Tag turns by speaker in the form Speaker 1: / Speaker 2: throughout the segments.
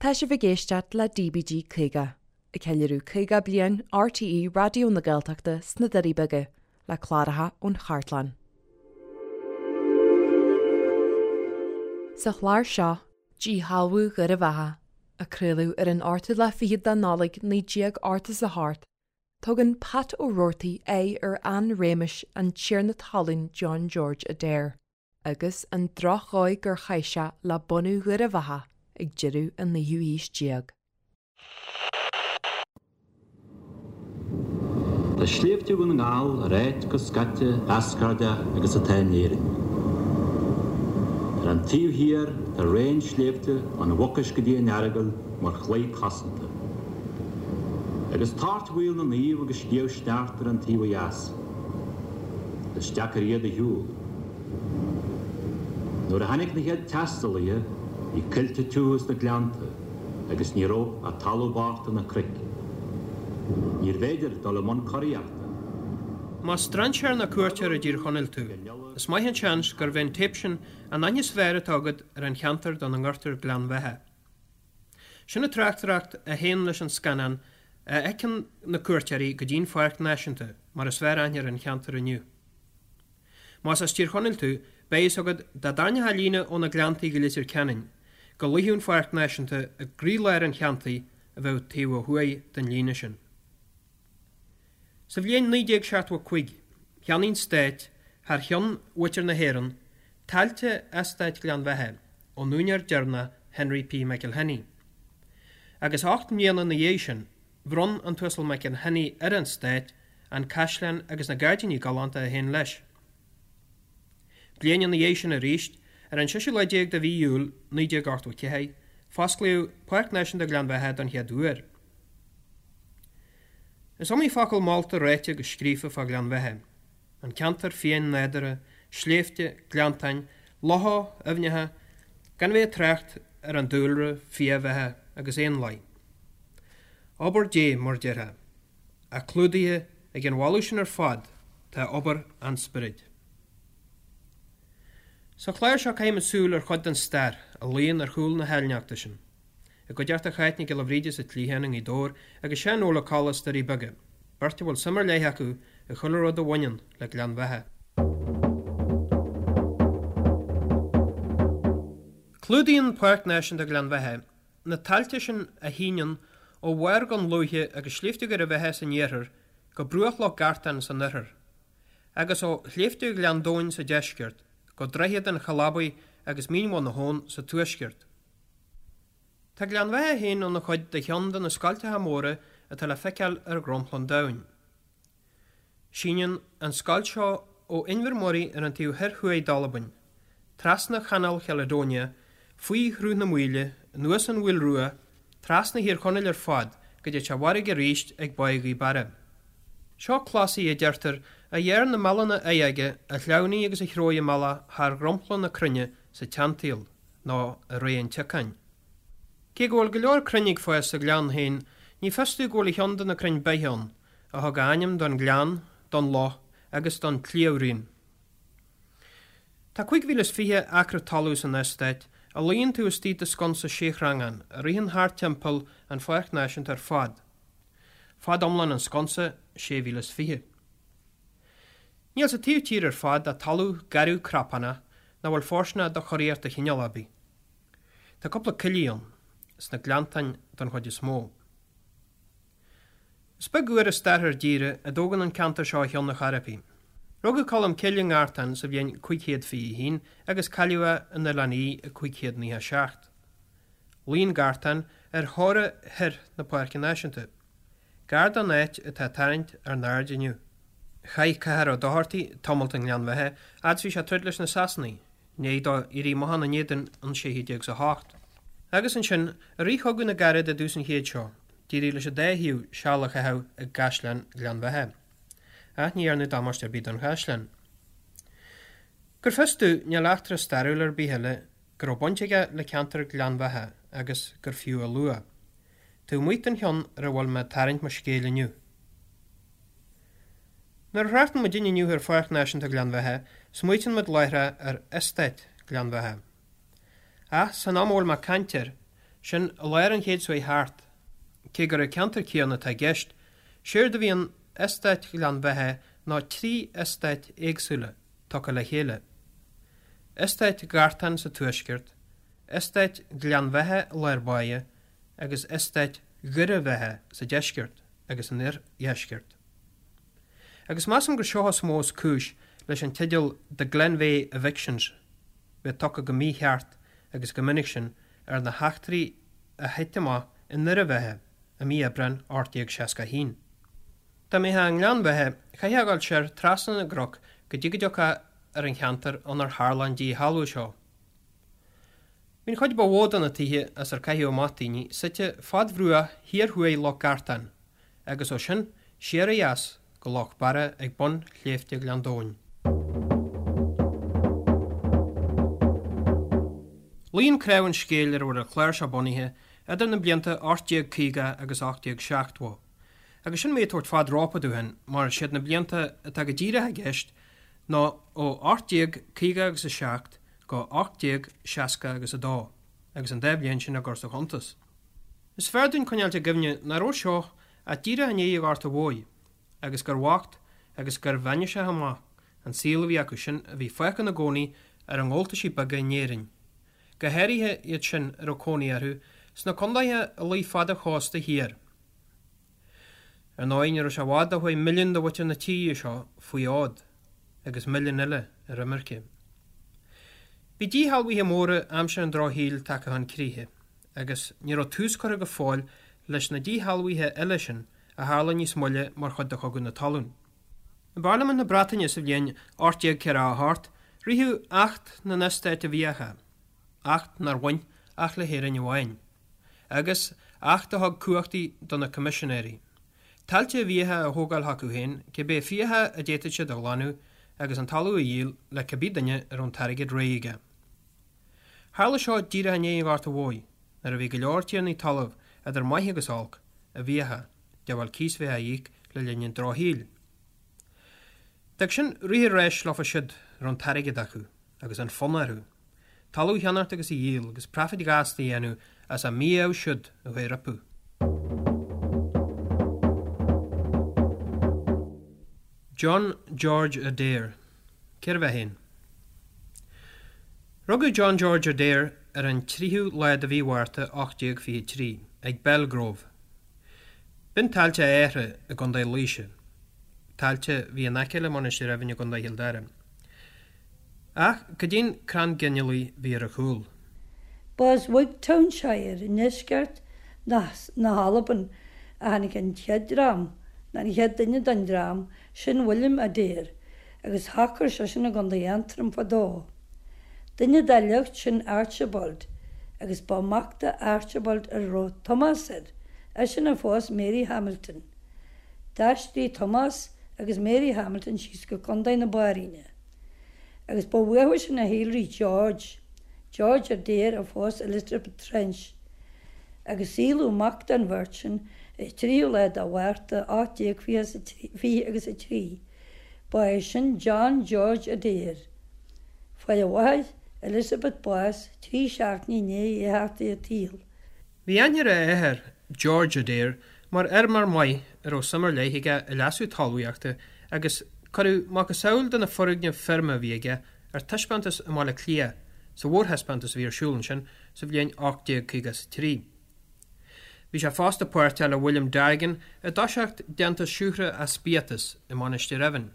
Speaker 1: Tá sibh ag éisteacht le DBG 50, ag ceiliúradh 50 bliain RTÉ Raidió na Gaeltachta sna Doirí Beaga, le cláracha ón chartlann. Sa chlár seo, Díshealbhú Dhoire Bheatha, a craoladh ar an ochtú lá fichead de Nollaig 1988, tugann Pat Ó Roarty aghaidh ar ardréimeas an tiarna talún John George Adair. agus an drochdhóigh gur chaith sé le bunú Dhoire Bheatha ag deireadh an naoú haois déag.
Speaker 2: Tá sléibhte Dhún na nGall ar áit chomh scaite eascairdeach agus atá in Éirinn. Ar an taobh thiar tá raon sléibhte ón Mhucais go dtí an Earagail mar chlaí cosanta. Agus Toirt Mhaoil na Naomh agus Sliabh Sneachta ar an taobh ó dheas. Is deacair iad a shiúl. Nuair a tháinig na chéad taistealaithe, bhí coillte tiubha sna gleannta agus ní raibh ach talamh bocht ná cnoic. Níorbh fhéidir dul i mbun curaíochta.
Speaker 3: Más strainséir nó cuairteoir i dTír Chonaill tú, is maith an seans gurb é an téip sin an aithne is fearr atá agat ar an cheantar dá ngairtear Gleann Bheatha. Sin an tráchtaireacht a théann leis an scannán a fheiceann na cuairteoirí go dtí'n Pháirc Náisiúnta, mar is fearr aithne ar an cheantar inniu. Más as Tír Chonaill tú, beidh fhios agat dá dtarraingeofá líne ó na Gleanntaí go Leitir Ceanainn, go luífeadh an Pháirc Náisiúnta i gcroílár an cheantair a bheadh taobh ó thuaidh den líne sin. Sa bhliain 1975, cheannaigh an Stát, thar cheann mhuintir na hÉireann, tailte Eastát Ghleann Bheatha ón úinéir deireanach Henry P. McIlhenny. Agus 8 mbliana ina dhiaidh sin, bhronn an tUasal McIlhenny ar an Stát an caisleán agus na gairdíní galánta a théann leis. Bliain ina dhiaidh sin arís, ar an seisiú lá déag de mhí Iúil 1984, fosclaíodh Páirc Náisiúnta Ghleann Bheatha don chéad uair. Is iomaí focal molta ráite agus scríofa fá Ghleann Bheatha, an ceantar fiáin nádúrtha, sléibhte, gleanntáin, locha, aibhneacha, gan a bheith ag trácht ar an dúlra, fiabheatha agus éanlaith. Obair Dé, mar déarfá. Ach clúdaithe ag an mholadh sin ar fad tá obair an Spioraid. Sa chlár seo caithfimid súil ar chuid den stair a luíonn ar chúl na háilneachta sin. I gcuideachta Cháit Nic Giolla Bhríde as an tSliabhán i nGaoth Dobhair agus Seán Óg Ó Colla as Doirí Beaga, beirt a bhfuil suim ar leith acu i chuile rud a bhaineann le Gleann Bheatha. Clúdaíonn Páirc Náisiúnta Ghleann Bheatha na tailte sin a shíneann ó bharr Dhún Lúiche agus Sléibhte Dhoire Bheatha san iarthar go bruach Loch Gartán san oirthear, agus ó Shléibhte Ghleann Domhain sa deisceart go droichead an Chalabaigh agus Mín Bhun na hAbhann sa tuaisceart. Tá Gleann Bheatha féin ina chuid de cheann de na scoilteacha móra atá le feiceáil ar dhromchla an domhain. Síneann an scoilt seo ó Inbhir Moray ar an taobh thoir thuaidh d'Albain, trasna Chanáil Chaledonia, faoi Shruth na Maoile, anuas an Mhaoil Rua, trasna Thír Chonaill ar fad go dtí an bhfarraige arís ag Báigh Ghaoth Beara. Seo clásaí, a deirtear, a ghearr na meallanna oighege a shleamhnaigh agus a threabh a mbealach thar dhromchla na cruinne sa tseansaol. nó i ré an tsiocáin. Cé go bhfuil go leor crainn ag fás sa ghleann féin, ní fios domh go bhfuil a cheann de na crainn beithe ann, a thug a ainm don ghleann, don loch agus don tsliabhraon. Tá 5020 acra talún san eastát, a luíonn taobh istigh de sconsa séshreangán a ritheann thart timpeall an Pháirc Náisiúnta ar fad. Fad iomlán an sconsa, 6020. Níl sa taobh tíre ar fad ach talamh garbh crapánach nach bhfuil fóirsteanach do churaíocht de chineál ar bith. Tá cúpla coillidh ann, sna gleanntáin don chuid is mó. Is beag uair i stair ár dtíre a dtógann an ceantar seo a cheann ar chor ar bith. Rugadh Colm Cille i nGartán sa bhliain 521 agus cailleadh é in Oileán Í i 597. Luíonn Gartán ar theora thoir na Páirce Náisiúnta. Gar don áit atá ag tarraingt ár n-aird inniu. Chaith Conchúr Ó Dochartaigh tamalt i nGleann Bheatha fhad is bhí sé ag troid leis na Sasanaigh, i ndiaidh dó éirí amach ina n-éadan in 1608. Agus ansin, i rith Chogadh na gCarad i dtús an chéid seo, d'éirigh leis an dá thaobh seal a chaitheamh i gCaisleán Ghleann Bheatha. Ach ní dhearnadh damáiste ar bith don chaisleán. Gur fios domh, níl eachtra stairiúil ar bith eile go raibh baint aige le ceantar Ghleann Bheatha agus gur fiú a lua. Taobh amuigh den cheann ar a bhfuil mé ag tarraingt mo scéil inniu. Nuair a thráchtann muidinne inniu ar Pháirc Náisiúnta Ghleann Bheatha, smaoitíonn muid láithreach ar Eastát Ghleann Bheatha. Ach san am a bhfuil mé ag caint air, Sin i lár an chéid seo chuaigh thart. Cé gur an ceantar céanna atá i gceist, séard a bhí in Eastát Ghleann Bheatha ná 3 eastát éagsúla tugtha le chéile. Eastát Ghartáin sa tuaisceart, Eastát Ghleann Bheatha i lár báire agus Eastát Dhoire Bheatha sa deisceart agus san oirdheisceart. Agus measaim gur seo is mó is cúis leis an teideal 'The Glenveagh Evictions' bheith tugtha go mícheart agus go minic sin ar na heachtraí a thit amach i nDoire Bheatha i mí Aibreáin 1861. Dá mbeifeá i nGleann Bheatha, chaithfeá a dhul soir trasna na gcnoc go dtí go dtiocfá ar an cheantar inar tharla an díshealbhú seo. Bhí an chuid ba mhó de na tithe as ar caitheadh amach daoine suite fad bhruach thiar thuaidh Loch Gartán agus ó sin siar ó dheas go Loch Barra ag bun Shléibhte Ghleann Domhain. Luíonn cnámh an scéil ar a bhfuil an clár seo bunaithe idir na blianta 1850 agus 1870. Agus sin mé ag tabhairt fad rópa dúinn mar is iad na blianta atá go díreach i gceist ná ó 1850 agus 7 go 1860 agus 2, agus an dá bhliain sin á gcur sa chuntas. Is fearr dúinn coinneáilt i gcuimhne nach raibh seo ach díreach i ndiaidh an Ghorta Mhóir, agus gur bhocht agus gur bhainne amach an saol a bhí acu sin a bhí fágtha ina gcónaí ar a ngabháltaisí beaga in Éirinn, go háirithe iad sin a raibh cónaí orthu sna condaetha a luigh fad an chósta thiar. Ar ndóigh, ní raibh sé i bhfad ó chuaigh milliún de mhuintir na tíre seo faoi fhód, agus milliún eile ar imirce. Bhí díshealbhuithe móra aimsir an Drochshaoil tagtha chun críche, agus ní raibh tús curtha go fóill leis na díshealbhuithe eile sin a tharla níos moille mar chuid de Chogadh na Talún. I bParlaimint na Breataine sa bhliain 1848 ritheadh Acht na nEastát i bhFiacha, acht nár bhain ach le hÉirinn amháin, agus acht a thug cumhachtaí do na Coimisinéirí, tailte i bhfiacha a thógáil chucu féin, cibé fiacha a d'fhéadfadh siad a ghlanadh agus an talamh a dhíol le cibé duine a raibh an t-airgead réidh aige. Tharla seo díreach i ndiaidh an Ghorta Mhóir, nuair a bhí go leor tiarnaí talaimh, idir maith agus olc, i bhfiacha, de bharr cíos bheith á íoc le linn an drochshaoil. D'fhág sin rith an ráis leofa siúd a raibh an t-airgead acu, agus an fonn orthu, talamh a cheannacht agus a dhíol agus praifid ghasta a dhéanamh as a mí-ádh siúd a chuaigh rompu. John George Adair. Cérbh é féin? Rugadh John George Adair ar an 3ú lá de mhí Mhárta 1823 ag Belgrove. B'in tailte a athara i gContae Laoise, tailte a bhí in aice le Mainistir Eimhín i gContae Chill Dara. Ach cad é an crann ginealaigh a bhí ar a chúl?
Speaker 4: Ba as Wigtownshire i ndeisceart na hAlban a tháinig an chéad dream, nó an chéad duine den dream, sin William Adair, agus shocair seisean i gContae Aontroim fadó. Duine dá shliocht sin Archibald, agus ba mac do Archibald a raibh Tomás air, eisean a phós Mary Hamilton. D'aistrigh Tomás agus Mary Hamilton síos go Contae na Bairíne. Agus ba uathu sin a shíolraigh George, George Adair a phós Elizabeth Trench. Agus saolaíodh mac don bheirt sin ar 3ú lá de Mhárta 1820 agus 3. Ba é sin John George Adair. Fuair a mháthair, Elizabeth bás 3 seachtainí i ndiaidh é theacht ar an tsaol.
Speaker 3: Bhí aithne ar a athair, George Adair, mar fheirmeoir maith a raibh suim ar leith aige i leasú talmhaíochta agus cuireadh macasamhail de na foirgnimh feirme a bhí aige ar taispeántas i mBaile Átha Cliath sa mhórthaispeántas a bhí ar siúl ansin sa bhliain 1853. Bhí sé fosta páirteach le William Dargan i dtoiseacht déantús siúcra as biatas i Mainistir Eimhín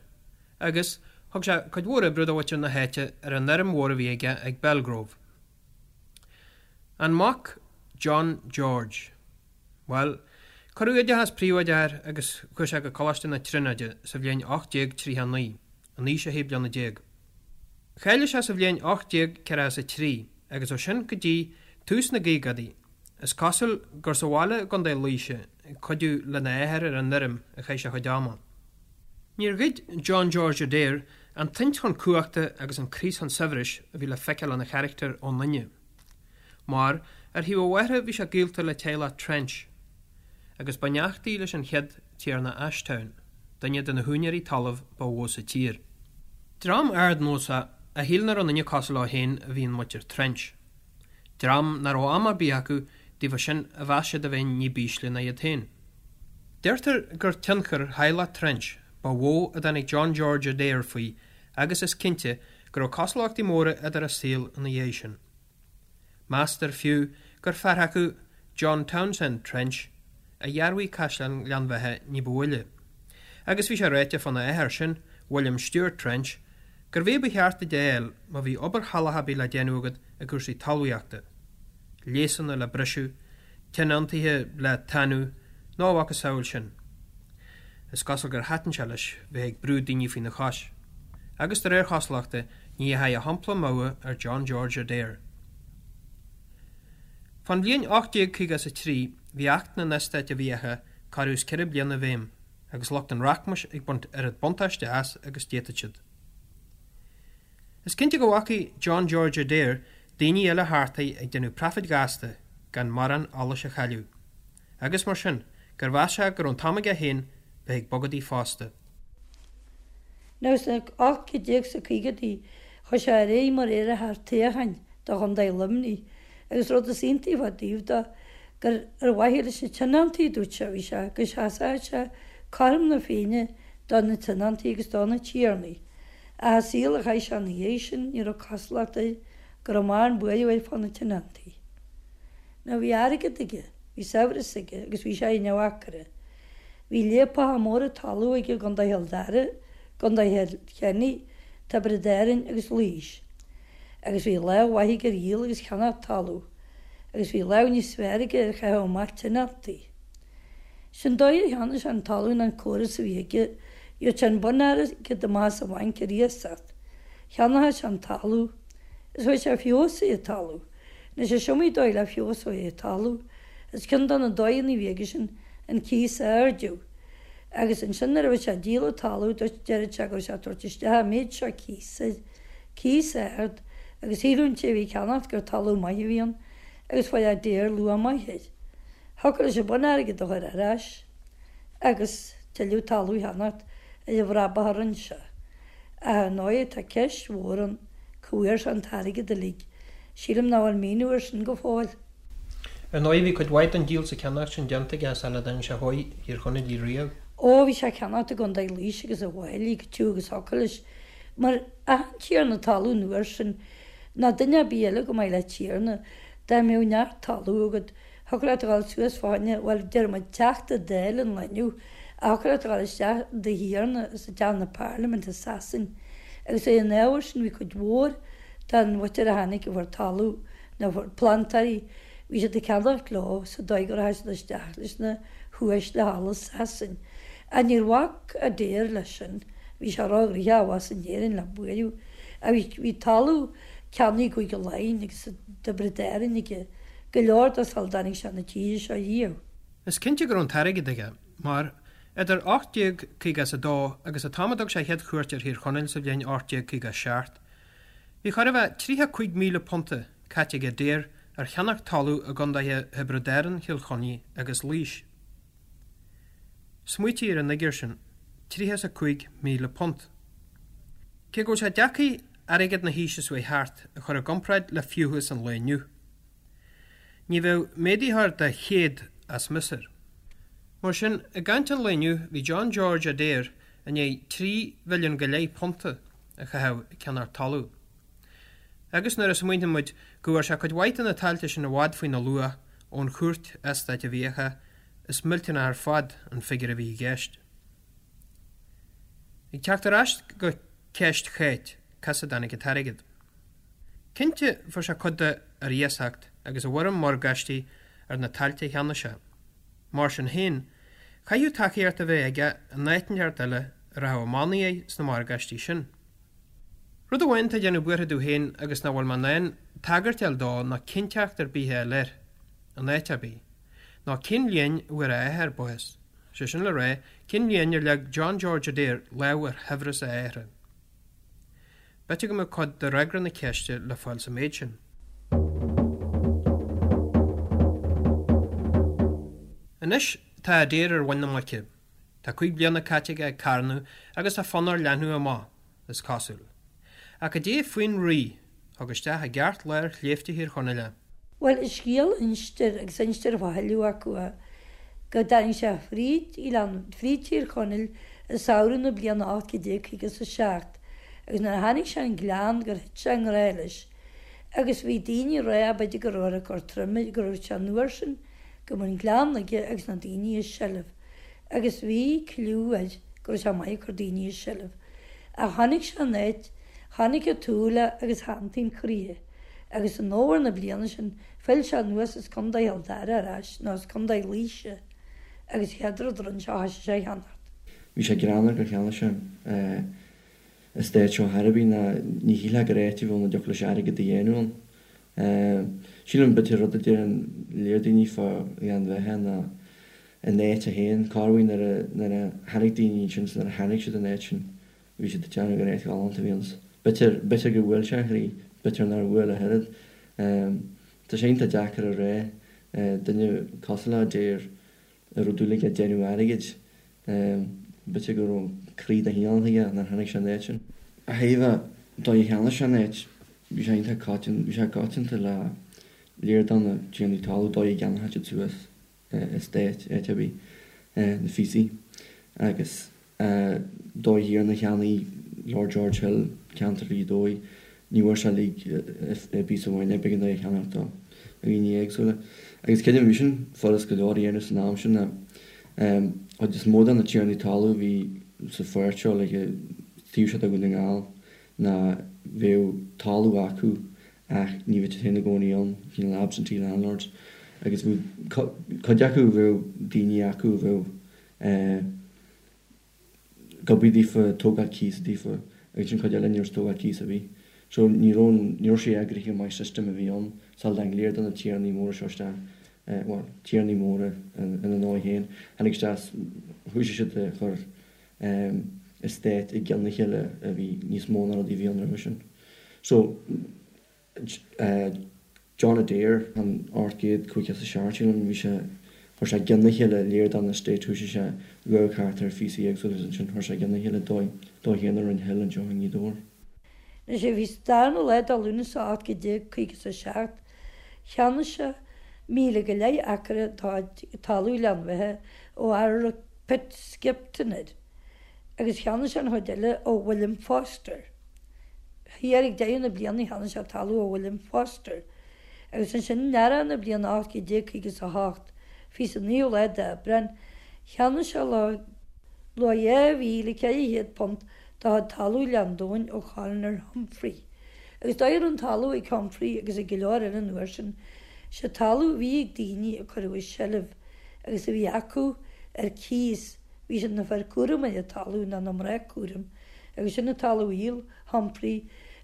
Speaker 3: agus thug sé cuid mhór oibre do mhuintir na háite ar an fheirm mhór a bhí aige ag Belgrove. An mac, John George. Bhuel, cuireadh oideachas príobháideach air agus chuaigh sé go Coláiste na Tríonóide sa bhliain 1839, in aois a shé bliana déag. Cháiligh sé sa bhliain 1843 agus ó sin go dtí tús na gcaogaidí, is cosúil gur sa bhaile i gContae Laoise ag cuidiú lena athair ar an fheirm a chaith sé a chuid ama. Níor ghoid John George Adair an tsaint chun cumhachta agus an craos chun saibhris a bhí le feiceáil ina charachtar ón ndaoine. Mar, ar thaobh a mháthara bhí sé gaolta le teaghlach Trench, agus ba neachtaí leis an chéad Tiarna Ashtown, duine de na húinéirí talaimh ba mhó sa tír. Dream ardnósach a shíl nach raibh aon duine cosúil leo féin a bhí in muintir Trench. Dream nach raibh am ar bith acu daofa sin a mheas siad a bheith ní b'ísle ná iad féin. Deirtear gur tionchar theaghlach Trench ba mhó a dtáinig John George Adair faoi agus is cinnte go raibh cosúlachtaí móra idir a saol ina dhiaidh sin. Meastar fiú gur fear acu, John Townsend Trench, a dhearbhaigh Caisleán Ghleann Bheatha ní ba mhoille. Agus bhí sé ráite fána athair sin, William Stewart Trench, gurbh é ba cheart duit a fháil má bhí obair shalach ar bith le déanamh agat i gcúrsaí talmhaíochta, léasanna le briseadh, tionóntaithe le tanú, nó a mhacasamhail sin. Is cosúil gur thaitin sé leis bheith ag brú daoine faoina chois. Agus de réir chosúlachta, ní dheachaigh a shampla amú ar John George Adair. Fán bhliain 1853 bhí Acht na nEastát i bhFiacha corradh is 4 bliana i bhfeidhm agus lucht an rachmais ag baint oiread buntáiste as agus d'fhéadfadh siad. Is cinnte go bhfacaidh John George Adair daoine eile thart air ag déanamh praifid ghasta gan morán allais a chailleadh, agus mar sin, gur mheas sé go raibh an t-am aige féin bheith ag bogadaí fosta.
Speaker 4: Now sna 1850idí chuaigh sé ar aghaidh mar iarrthóir toghcháin do Chontae Luimnigh agus rud is iontaí fá dtaobh de gur ar mhaithe leis na tionóntaí a dúirt sé a bhí sé, go seasfadh sé cothrom na Féinne do na tionóntaí agus do na tiarnaí. Ach an saol a chaith sé ina dhiaidh sin ní raibh cosúlacht air go raibh mórán buaireamh air fá na tionóntaí. Now bhí airgead aige, bhí saibhreas aige agus bhí sé ina bhacaire. Bhí léapacha móra talún aige i gContae Chill Dara, gContae Chill Chainnigh, Tiobraid Árann agus Laois. Agus bhí lámh mhaith aige ar dhíol agus cheannach talún. Agus bhí lámh níos fearr aige ar chaitheamh amach tionóntaí. Sin dóigh ar cheannaigh sé an talamh ná an córas a bhí aige, gheobhadh sé an bun-airgead amach as an bhanc ar iasacht. Cheannódh sé an talamh. Is chuireadh sé feabhas ar an talamh. Anois is iomaí dóigh le feabhas a chur ar talamh. Is ceann de na dóigheanna a bhí aige sin an cíos a ardú. Agus ansin nuair a bhí sé ag díol an talaimh duit deireadh sé go raibh sé ag tabhairt isteach an méid seo cíos air, cíos ard, agus shíleadh an té a bhí ag ceannacht gur talamh maith a bhí ann agus fuair Adair luach maith air. Thiocfadh leis an bun-airgead a chur ar ais agus tuilleadh talamh a cheannacht ar an bhrabach a rinne sé. Ach ar ndóigh tá ceist mhór ann cá bhfuair sé an t-airgead uilig. Sílim nach bhfuil míniú air sin go fóill.
Speaker 3: Ar ndóigh bhí cuid mhaith den díol 's an ceannacht sin déanta aige sula dtáinig sé chuig Thír Chonaill riamh.
Speaker 4: Ó, bhí sé ag ceannacht i gContae Laoise agus i bhFailí go tiubh agus thiocfadh leis, mar achan tiarna talún an uair sin, ná duine ar bith eile chomh maith le tiarna, dá mbeadh neart talún agat, thiocfadh leat a dhul suas fá choinne, bhuel, deir muid Teachta Dála an lae inniu, ach thiocfadh leat a dhul isteach do thiarna sa dteach na Parlaiminte i Sasain. Agus ar an ábhar sin bhí cuid mhór den mhuintir a tháinig a fuair talamh, na plantóirí, bhí siad ag ceannacht leo sa dóigh go rachadh siad isteach leis na huaisle thall i Sasain. Ach níor bhac Adair leis sin, bhí sé róghnoitheach abhus in Éirinn le buaireamh. Ach bhí, bhí talamh ceannaithe i gCúige Laighean agus i dTiobraid Árann aige, go leor de sula dtáinig sé na tíre seo riamh.
Speaker 3: Is cinnte go raibh an t-airgead aige, mar, idir 1852 agus an t-am a dtug sé a chéad chuairt ar Thír Chonaill sa bhliain 1857, Bhí chóir a bheith £35,000 caite ag Adair ar cheannach talamh i gcondaetha Thiobraid Árann, Chill Chainnigh agus Laois. Smaoitigh ar an fhigiúr sin, £35,000. Cé go bhfuil sé deacair airgead na haoise seo chuaigh thart a chur i gcomparáid le fiúchas an lae inniu, ní bheadh méadaitheoir de 100 as mias air. Mar sin, i gcaint an lae inniu, bhí John George Adair i ndiaidh trí mhilliún go leith punta a chaitheamh ag ceannacht talún. Agus nuair a smaointíonn muid go bhfuair sé cuid mhaith de na tailte sin i bhfad faoina luach ón chúirt eastáit i bhfiacha, is millteanach ar fad an figiúr a bhí i gceist. Ag teacht ar ais go ceist Cháit, cá as a dtáinig an t-airgead? Cinnte fuair sé cuid de ar iasacht agus i bhfoirm morgáistí ar na tailte a cheannaigh sé. Mar sin féin, chaithfeadh tacaíocht a bheith aige in áit inteacht eile a rachadh i mbannaí air sna morgáistí sin. Rud amháin atá ag déanamh buartha domh féin agus nach bhfuil mé in ann tagairt a fháil dó ná cinnteacht ar bith a fháil air, in áit ar bith, ná cén bhliain a bhfuair a athair bás, sé sin le rá, cén bhliain ar leag John George Adair lámh ar shaibhreas a athara. B'fhéidir go mbeadh cuid de fhreagra na ceiste le fáil sa méid sin. Anois tá Adair ar mhuin na muice. Tá 5 bliana caite aige ag carnadh agus tá fonn air leathnú amach, is cosúil. Ach cad é faoin Rí, thug isteach i gceartlár shléibhte Thír Chonaill é.
Speaker 4: Bhuel, an scéal a instear, agus instear fá thuilleadh acu é, go dtáinig sé fríd Ghleann, fríd Tír Chonaill i samhradh na bliana 1857, agus nuair a tháinig sé an Gleann gur thit sé i ngrá leis. Agus bhí daoine ag rá, b'fhéidir go raibh ag cur troime, go raibh sé an uair sin, go mbeadh an Gleann aige agus na daoine i seilbh. Agus bhí cliú air go raibh sé maith ag cur daoine i seilbh. Ach chonaic sé an áit, chonaic an tsúil é agus shantaigh an croí é. Agus in fhómhar na bliana sin phill sé anuas as Contae Chill Dara ar ais, nó as Contae Laoise, agus chéad rud a rinne sé thoisigh sé a cheannacht.
Speaker 5: Bhí sé greannmhar gur cheannaigh sé an estate seo ar chor ar bith ná ní shílfeá gur áit a bhí ann a dtiocfadh leis airgead a dhéanamh ann. Sílim b'fhéidir rud a deireann léar daoine fá Ghleann Bheatha ná an áit é féin, corruair nuair a tháinig daoine ansin is nuair a chonaic siad an áit sin Bhí siad ag déanamh gur áit ghalánta a bhí ann. B'fhéidir, b'fhéidir gur bhuail sé a chroí, b'fhéidir nár bhuail ach oiread. Tá sé iontach deacair a rá, duine cosúil le Adair a raibh dúil aige déanamh airgid, b'fhéidir go raibh croí de chineál aige nuair a chonaic sé an áit sin. Ó thaobh an dóigh a cheannaigh sé an áit, bhí sé iontach coitianta, bhí sé coitianta le léar de na tiarnaí talún dóigh a gceannódh siad suas estate, áit ar bith, na phíosaí agus dóigh thiar nuair a cheannaigh Lord George Hill ceantar Ghaoth Dobhair, ní bhfuair sé uilig i bpíosa amháin é, b'éigean dó é a cheannacht ó dhaoine éagsúla. Agus creidim bhí sin furast go leor a dhéanamh san am sin ná chuid is mó de na tiarnaí talún a bhí sa pháirt seo like taobh seo de Dhún na nGall ná bheadh talamh acu ach ní bheadh siad féin ina gcónaí ann, cineál absentee landlords, agus bheadh cuid acu, bheadh daoine acu a bheadh ag obair daofa, ag tógáil cíosa daofa, agus ansin cuid eile ní raibh siad ag tógáil cíosa ar bith. So ní raibh an, ní raibh sé eagraithe go maith system a bhí ann sula dtáinig léar de na tiarnaí móra seo isteach, bhuel, tiarnaí móra ina ndóigh féin, tháinig isteach is thoisigh siad ag cur estate i gcionn a chéile a bhí níos mó ná rudaí a bhí ann roimhe sin. So, John Adair, an 857, sílim, bhí sé, chuir sé i gcionn a chéile léar de na estates, thoisigh sé ag amharc thart ar phíosaí éagsúla agus ansin chuir sé i gcionn a chéile dó, dó féin a rinne Hill anseo i nGaoth Dobhair.
Speaker 4: Anois bhí sa darna lá de Lúnasa 1857, cheannaigh sé míle go leith acra talamh Ghleann Bheatha ó fhear a raibh Pitt Skipton air, agus cheannaigh sé an chuid eile ó William Foster. Thiar ag deireadh na bliana cheannaigh sé talamh ó William Foster, agus ansin in earrach na bliana 1858, fiche is an naoú lá d'Aibreán, cheannaigh sé luach £2,400 de chuid talamh Ghleann Domhain ó Chaloner Humphrey. Agus dóigh a raibh an talamh ag Humphrey agus ag go leor eile an uair sin, sé talamh a bhí ag daoine a cuireadh i seilbh agus a bhí acu ar cíos, bhí siad na fir cúraim ar an talamh ná na mná cúraim, agus sin an talamh a dhíol Humphrey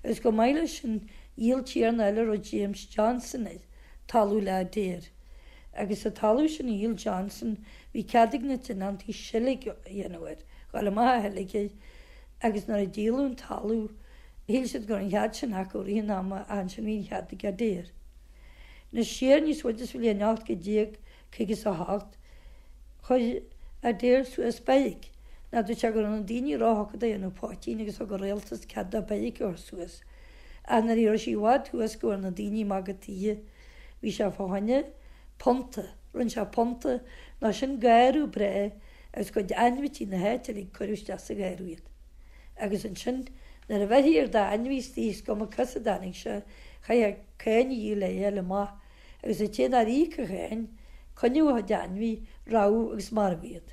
Speaker 4: agus chomh maith leis sin dhíol tiarna eile a raibh James Johnson air, talamh le Adair. Agus sa talamh sin a dhíol Johnson bhí cead ag na tionóntaí seilg a dhéanamh air, dhul amach a sheilg air agus nuair a díoladh an talamh shíl siad go raibh an chead sin acu i rith an ama ach ansin bhí an chead ag Adair. Anois siar níos faide sa bhliain 1858, chuir Adair suas beairic. Ná dúirt sé go raibh na daoine róthugtha do dhéanamh poitín agus thug an rialtas cead dó beairic a chur suas. Ach nuair a raibh sí i bhfad thuas go bhfuair na daoine amach cad tuige, bhí sé fá choinne punta. Rinne sé punta, ná sin garradh breá agus cuid ainmhití na háite uilig cuireadh isteach sa gharradh iad. Agus ansin nuair a bheirthí ar d'ainmhí istigh is cuma cá as a dtáinig sé, chaithfeá cáin a dhíol é a fháil amach agus an té nár íoc a cháin, coinneodh a chuid ainmhí, rabhadh agus marbhadh iad.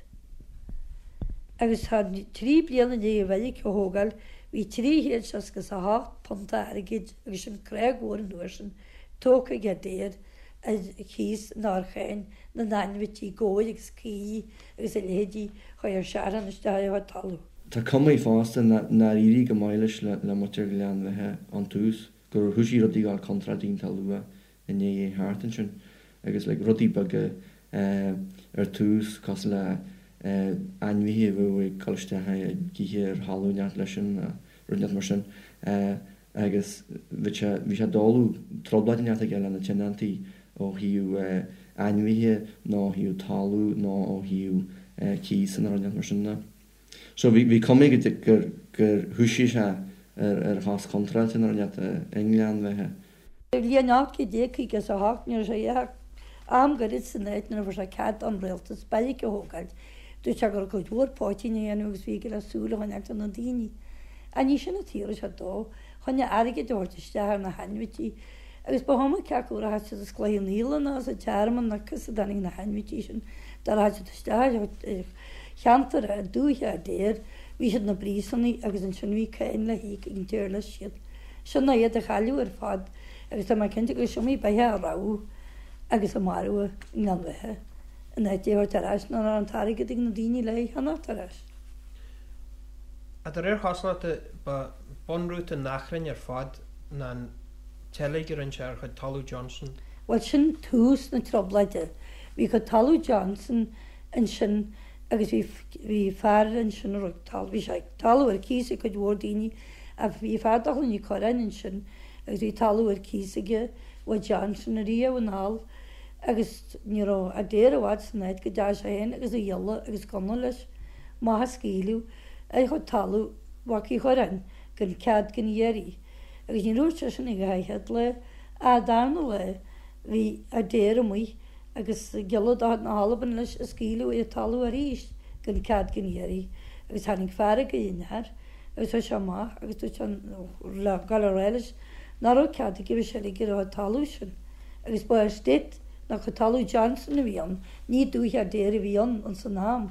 Speaker 4: Agus tá 3 bliana i ndiaidh an bheairic a thógáil bhí £368 airgid, agus sin creag mhór an uair sin, tógtha ag Adair ar chíos nó ar cháin na n-ainmhití, gabhair agus caoirigh agus a leithéidí, chuaigh ar searthan isteach ar a chuid talaimh.
Speaker 5: Tá cuma fosta nár éirigh go maith leis le muintir Ghleann Bheatha ón tús, gur thoisigh rudaí a ghabháil contráilte iontach luath i ndiaidh é theacht ansin agus like rudaí beaga ar tús cosúil le ainmhithe a bheadh ag dul isteach ag ithe ar thalamh inteacht leis sin nó rud inteacht mar sin agus bhí sé bhí sé doiligh trioblóid inteacht aige le na tionóntaí ó thaobh ainmhithe nó ó thaobh talamh nó ó thaobh cíosa nó rud inteacht mar sin de. So bhí bhí cuma aige gur gur thoisigh sé ar ar chos chontráilte nó rud inteacht i nGleann Bheatha.
Speaker 4: Sa bhliain 1858 ní raibh sé ach am gairid san áit nuair a fuair sé cead ón rialtas beairic a thógáilt. Dúirt sé go raibh cuid mhór poitín á dhéanamh agus bhí aige le súil a choinneáilt ar na daoine. Ach ní sin an tsaol a raibh sé dó, chun airgead a thabhairt isteach ar na hainmhití. Agus ba chuma cé acu a rachaidh siad as Cloich Cheann Fhaola ná as an Tearmann nó cá as a dtáinig na hainmhití sin, dá rachaidh siad isteach ar cheantar dúiche Adair, bhí siad ina bpríosúnaigh agus ansin bhí cáin le híoc ag an tír leis siad. Sin ná iad a chailleadh ar fad agus tá mé cinnte gur is iomaí beithe a rabhadh agus a marbhadh i nGleann Bheatha in áit é a thabhairt ar ais nuair nach raibh an t-airgead ag na daoine le é a cheannacht ar ais.
Speaker 3: De réir chosúlachta ba bunrúta an achrainn ar fad ná an tseilg a rinne sé ar chuid talamh Johnson.
Speaker 4: Bhuel sin tús na trioblóide. Bhí cuid talamh Johnson ansin agus bhí bhí fear ansin a raibh talamh, bhí sé talamh ar cíos ag cuid mhór daoine Ach bhí fear de Chloinn Uí Chorráin ansin agus bhí talamh ar cíos aige uaidh Johnson ariamh anall agus ní raibh Adair i bhfad san áit go dteachaidh sé féin agus a ghiolla agus gunna leis amach ag scaoileadh ar chuid talamh Mhac Uí Chorráin gan cead gan iarraidh agus ní dúirt sé sin ach an chéad lá ach an darna lá bhí Adair amuigh agus giolla de chuid na hAlban leis ag scaoileadh ar an talamh arís gan cead gan iarraidh agus tháinig fearg ar an fhear agus chuaigh sé amach agus dúirt sé le gabháil a rá leis nach raibh cead aige bheith seilg ar an talamh sin agus ba estate nó cuid talamh Johnson a bhí ann, ní dúiche Adair a bhí ann ins an am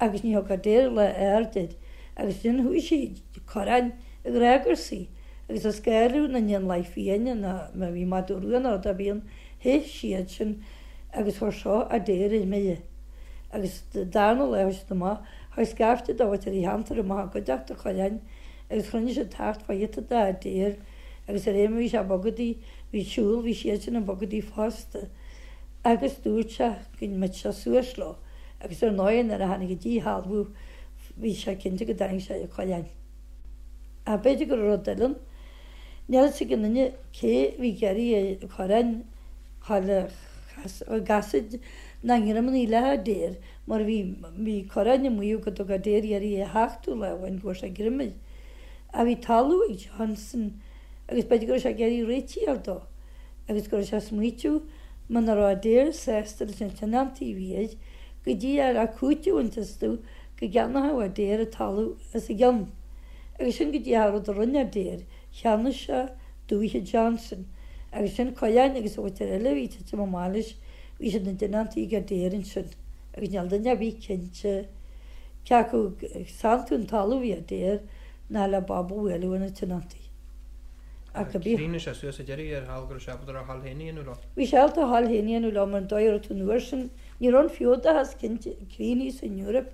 Speaker 4: agus ní thug Adair lá aird air agus ansin chuaigh sé Corráin ag rá gur saoi agus ag scanrú na n-éanlaith fiáine ná má bhí madadh rua nó rud ar bith ann theith siad sin agus chuir seo Adair ar mire agus darna lá chuaigh siad amach Chuaigh scaifte de mhuintir an cheantair amach i gcuideachta Chorráin agus chruinnigh siad thart fá ghiota d'Adair agus de réir mar bhí sé ag bogadaí, bhí siúl, bhí siadsan ag bogadaí fosta agus dúirt sé go mbeadh sé suas leo agus ar ndóigh nuair a tháinig an díshealbhú bhí sé cinnte go dtarraing sé ar Chorrán. Ach b'fhéidir go raibh rud eile ann. Níl a fhios ag aon duine cé a bhí ag iarraidh ar Chorrán a dhul i gcasaoid ná i ngreamannaí le hAdair Mar bhí, bhí Corráin ag maíomh go dtug Adair iarraidh é a thachtadh lá amháin go bhfuair sé greim air. Ach bhí talamh ag Johnson agus b'fhéidir go raibh sé ag iarraidh réitigh a fháil dó agus go raibh sé ag smaoitiú muna raibh Adair sásta leis na tionóntaí a bhí air go dtí a raibh cúiteamh iontu astu go gceannóchadh Adair an talamh as a gcionn. Agus sin go díreach an rud a rinne Adair, cheannaigh sé dúiche Johnson agus sin Corráin agus an mhuintir eile a bhí ag titim amach leis Bhí siad ina dtionóntaí ag Adair ansin agus níl duine ar bith cinnte cé acu ag santú an talaimh a bhí Adair ná le bob a bhualadh ar na tionóntaí.
Speaker 3: Ach cibé. Chríochnaigh sé suas sa deireadh ar thall go raibh sé ábalta a thoil féin a dhéanamh leo.
Speaker 4: Bhí sé ábalta a thoil féin a dhéanamh leo mar an dóigh a raibh tú an uair sin, ní raibh an feodachas cinnte críochnaithe san Eoraip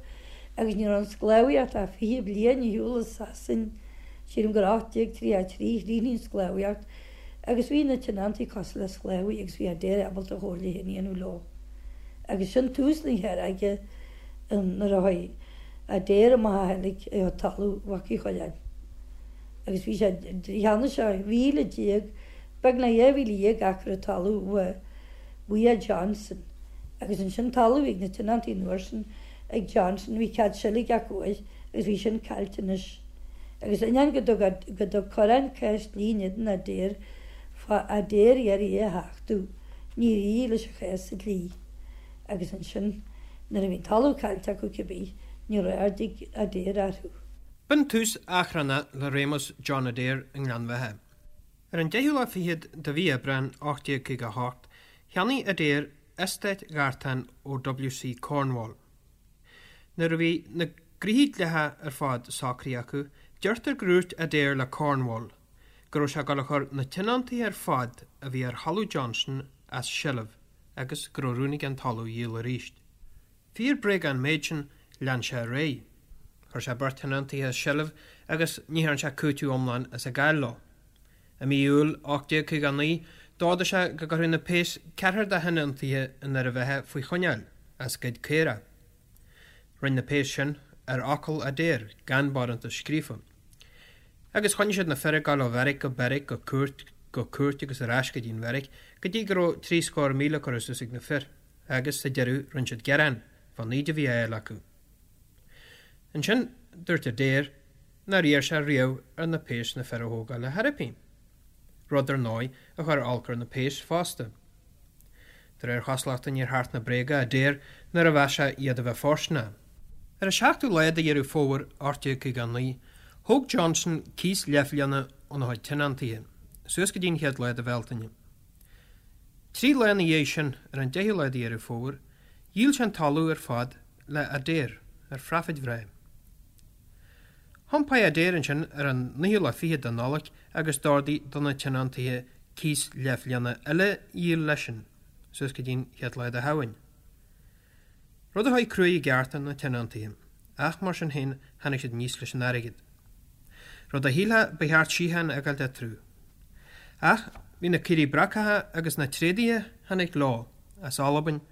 Speaker 4: agus ní raibh an sclábhaíocht ach 20 bliain ar shiúl i Sasain, sílim gur 1833 a chríochnaigh an sclábhaíocht. Agus bhí na tionóntaí cosúil le sclábhaí agus bhí Adair ábalta a chomhairle féin a dhéanamh leo. Agus sin tús na feirge nuair a chuaigh Adair amach a sheilg ar talamh Mhac Uí Chorráin. Agus bhí sé, cheannaigh sé 12,000, beagnach 12,000 acra talamh uaidh Johnson. Agus ansin talamh a bhí ag na tionóntaí an uair sin ag Johnson, bhí cead seilge acu air agus bhí sin caillte anois. Agus ainneoin go dtug Corrán cás dlí in éadan Adair fá Adair iarraidh é a thachtadh, níor éirigh leis an chás sa dlí. Agus ansin, nuair a bhí an talamh caillte acu cibé, ní raibh aird ag Adair orthu.
Speaker 3: B'in tús achrannach le réimeas John Adair i nGleann Bheatha. Ar an deichiú lá fichead de mhí Aibreáin 1858, cheannaigh Adair eastát Ghartáin ó W.C. Cornwall. Nuair a bhí na gnoithí dleathacha ar fad socraithe acu, deirtear gur dhúirt Adair le Cornwall go raibh sé ag dul a chur na tionóntaithe ar fad a bhí ar thalamh Johnson as seilbh agus go raibh rún aige an talamh a dhíol arís. Fíor bréag an méid sin, lean sé ar aghaidh. Chuir sé beirt thionóntaithe as seilbh agus ní thearn sé cúiteamh iomlán as an gcáil leo. I mí Iúil 1859, d'ordaigh sé go gcuirfeadh na péas ceathrar de thionóntaithe i nDoire Bheatha faoi choinneáil as goid caorach. Rinne na péas sin ar fhocal Adair, gan barántas scríofa. Agus choinnigh siad na fir ag dul ó bheairic go beairic, go cúirt go cúirt agus ar ais go dtí an bheairic, go dtí go raibh 70,000 curtha suas ag na fir, agus sa deireadh rinne siad gearán fán íde a bhí á fháil acu. Ansin, dúirt Adair nár iarr sé riamh ar na péas na fir a thógáil ar chor ar bith. Rud, ar ndóigh, a chuir olc ar na péas fosta. De réir chosúlachta níor thacht na bréaga Adair nuair a mheas sé iad a bheith fóirsteanach. Ar an seachtú lá de Dheireadh Fómhair 1859, thóg Johnson cíos leathbhliana óna chuid tionóntaithe, suas go dtí an chéad lá de Bhealtaine. Trí lá ina dhiaidh sin, ar an deichiú lá de Dheireadh Fómhair, dhíol sé an talamh ar fad le Adair ar phraifid bhreá. Thiompaigh Adair ansin ar an naoú lá fichead de Nollaig agus d'ordaigh do na tionóntaithe cíos leathbhliana eile a dhíol leisean, suas go dtí'n chéad lá de Shamhain. Rud a chuaigh cruaidh i gceart ar na tionóntaithe, ach mar sin féin tháinig siad aníos leis an airgead. Rud a shílfeá ba cheart síocháin a fhágáilt eatarthu. Ach bhí na caoirigh brocacha agus na tréadaithe a tháinig leo as Albain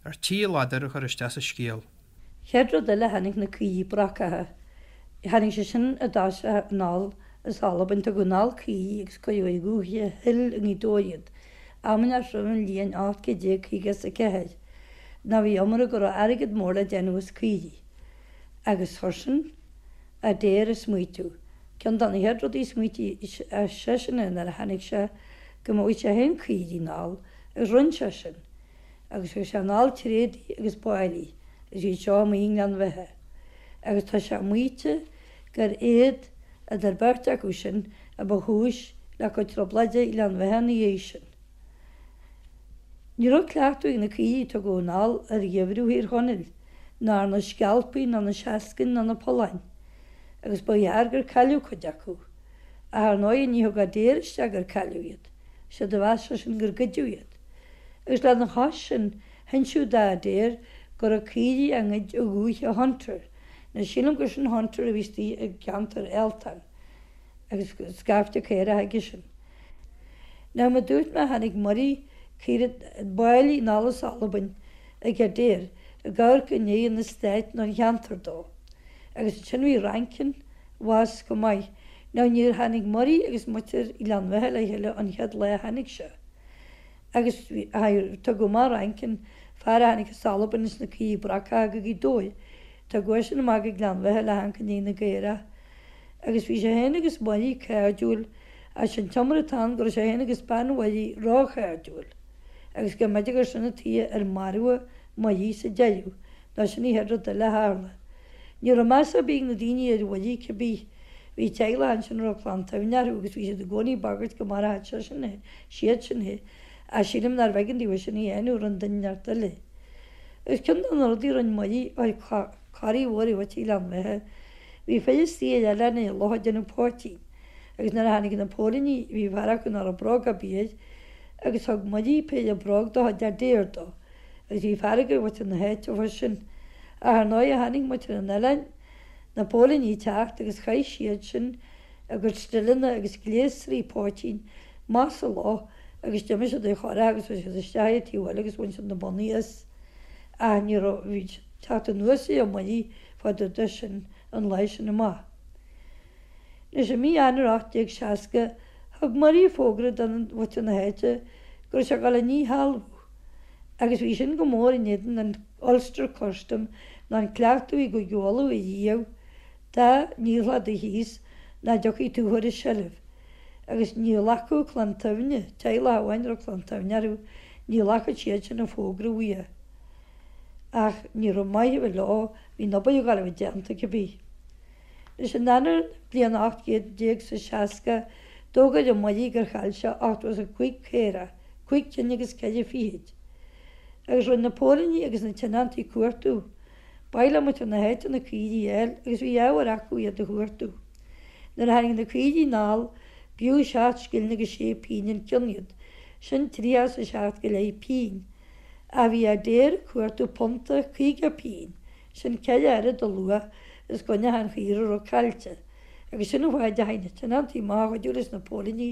Speaker 3: ar tí a ladar a chur isteach sa scéal.
Speaker 4: Chéad rud eile tháinig na caoirigh brocacha. Tháinig sé sin i dtosach anall as Albain. Tugadh anall caoirigh agus cuireadh ar Dhúiche Hill i nGaoth Dobhair iad. Amaineach roimh an bhliain 1854. Nó bhí iomrá go raibh airgead mór le déanamh as caoirigh. Agus chuir sin Adair ag smaoitiú. Ceann de na chéad rudaí a smaoitigh seisean air nuair a tháinig sé go mbeadh sé féin caoirigh anall agus rinne sé sin. agus thug sé anall tréadaí agus báillí agus iad seo amuigh i nGleann Bheatha agus tá sé maíte gur iad, idir beirt acu sin, a ba chúis le cuid trioblóide i nGleann Bheatha ina dhiaidh sin. Ní raibh cleachtadh ag na caoirigh a tugadh anall ar gheimhreadh Thír Chonaill, ná ar na scealpaigh ná na seascainn ná na polláin, agus ba ghearr gur cailleadh cuid acu. Ach ar ndóigh ní thug Adair isteach gur cailleadh iad, séard a mheas seisean gur goideadh iad. Agus lena chois sin, hinseadh d'Adair go raibh caoirigh á ngoid i dhúiche Hunter. Now sílim gur sin Hunter a bhí istigh i gceantar Elton, agus scaifte caorach aige sin. Now mar dúirt mé tháinig Murray, caoirigh, báillí anall as Albain ag Adair ag amharc i ndiaidh an estate nó an cheantair dó. Agus ansin bhí Rankin abhus chomh maith. Now níor tháinig Murray agus muintir Ghleann Bheatha le chéile an chéad lá a tháinig sé. Agus tugadh amach Rankin, fear a tháinig as Albain leis na caoirigh brocacha go Gaoth Dobhair, tugadh eisean amach go Gleann Bheatha le hamharc i ndiaidh na gcaorach. Agus bhí sé féin agus Murray cairdiúil, ach sé'n t-iomrá atá ann go raibh sé féin agus bean Mhurray róchairdiúil, agus go mb'fhéidir gur sin an tuige ar maraíodh Murray sa deireadh, nó sin an chéad rud eile a tharla. Ní raibh meas ar bith ag na daoine ar Mhurray cibé. Bhí teaghlach ansin a raibh clann tSuibhne orthu agus bhí siad i gcónaí ag bagairt go maródh seisean é, siad sin é. Ach sílim nárbh éigean daofa sin a dhéanamh, rinne duine inteacht eile. Agus ceann de na rudaí a rinne Murray, chuir corraí mhór ar mhuintir Ghleann Bheatha. Bhí fir istigh ar oileán ar loch ag déanamh poitín. Agus nuair a tháinig na póilíní bhí fear acu nach raibh bróg ar bith air agus thug Murray péire bróg de chuid Adair dó. Agus bhí fearg ar mhuintir na háite fá sin. Ach ar ndóigh chonaic muintir an oileáin na póilíní ag teacht agus chaith siad sin a gcuid stileanna agus gléasraí poitín amach sa loch agus d'imigh siad ar churach agus chuaigh siad isteach ar an taobh eile agus bhain siad na bonnaí as. Ach ní raibh, bhí siad ag teacht anuas ar Murray fá dtaobh de sin an lá sin amach. Anois i mí Eanáir 1860 thug Murray fógra do mhuintir na háite go raibh sé ag dul a ndíshealbhú agus bhí sin go mór in éadan an Ulster Custom nó an cleachtadh i gCúige Uladh ariamh dá ndíolfá do chíos nach dtiocfaí tú a chur i seilbh agus ní ghlacfadh Clann tSuibhne, teaghlach amháin a raibh Clann tSuibhne orthu, ní ghlacfadh siad sin an fógra uaidh. Ach ní raibh maith a bheith leo, bhí an obair ag dul a bheith déanta cibé. Anois in Eanáir na bliana 1860 d'fhógair an Murray gur chaill sé 85 caora, cúig cinn agus ceithre fichid. Agus rinne na póilíní agus na tionóntaí cuartú. B'áil le muintir na háite na caoirigh a fháil agus bhí ábhar acu iad a chuartú. Nuair a tháinig na caoirigh anall, b'fhiú seacht scilling agus sé pingin an ceann iad, sin 37 go leith pingin. Ach bhí Adair ag cuartú punta 50 pingin, sin ceithre oiread a luach is go achan chaora a raibh caillte. Agus sin an fáth a dteachaigh na tionóntaí amach a chuidiú leis na póilíní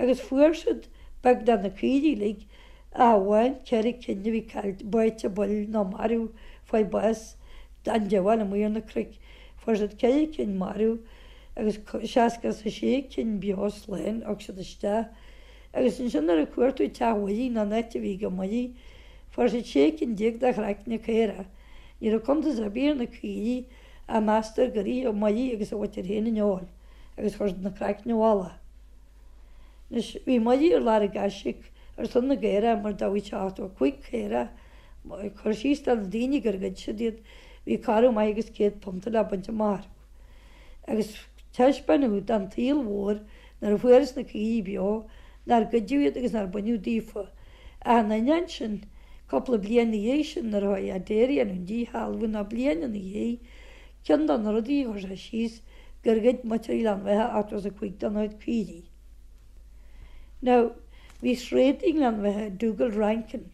Speaker 4: agus fuair siad beagnach na caoirigh uilig ach amháin ceithre cinn a bhí caillte, báite buil nó marbh, fuair bás an diabhail amuigh ar na cnoic. Fuair siad ceithre cinn marbh agus 66 cinn beo slán a thug siad isteach. Agus ansin nuair a cuartaíodh teach Mhurray nó an áit a bhí ag Murray, fuair siad 16 cinn de chraicne caorach. Ní raibh cuntas ar bith ar na caoirigh ach meastar gur ith Murray agus a mhuintir féin an fheoil agus chuir siad na craicne i bhfolach. Anois, bhí Muirí ar lorg aisíoc ar son na gcaorach mar d'fhaghaidh sé 85 caora, ag cur síos do na daoine gur ghoid siad iad, bhí corradh maith agus £100 le baint amach orthu. Agus taispeánadh don tsaol mhór nuair a fuarthas na caoirigh beo nár goideadh iad agus nár baineadh daofa. Ach in ainneoin sin, cúpla bliain ina dhiaidh sin nuair a chuaigh Adair a dhéanamh an díshealbhú nó bliain ina dhiaidh, ceann de na rudaí a chuir sé síos gur ghoid muintir Ghleann Bheatha 85 dena chuid caoirigh. Now, bhí tréadaí i nGleann Bheatha, Dugald Rankin,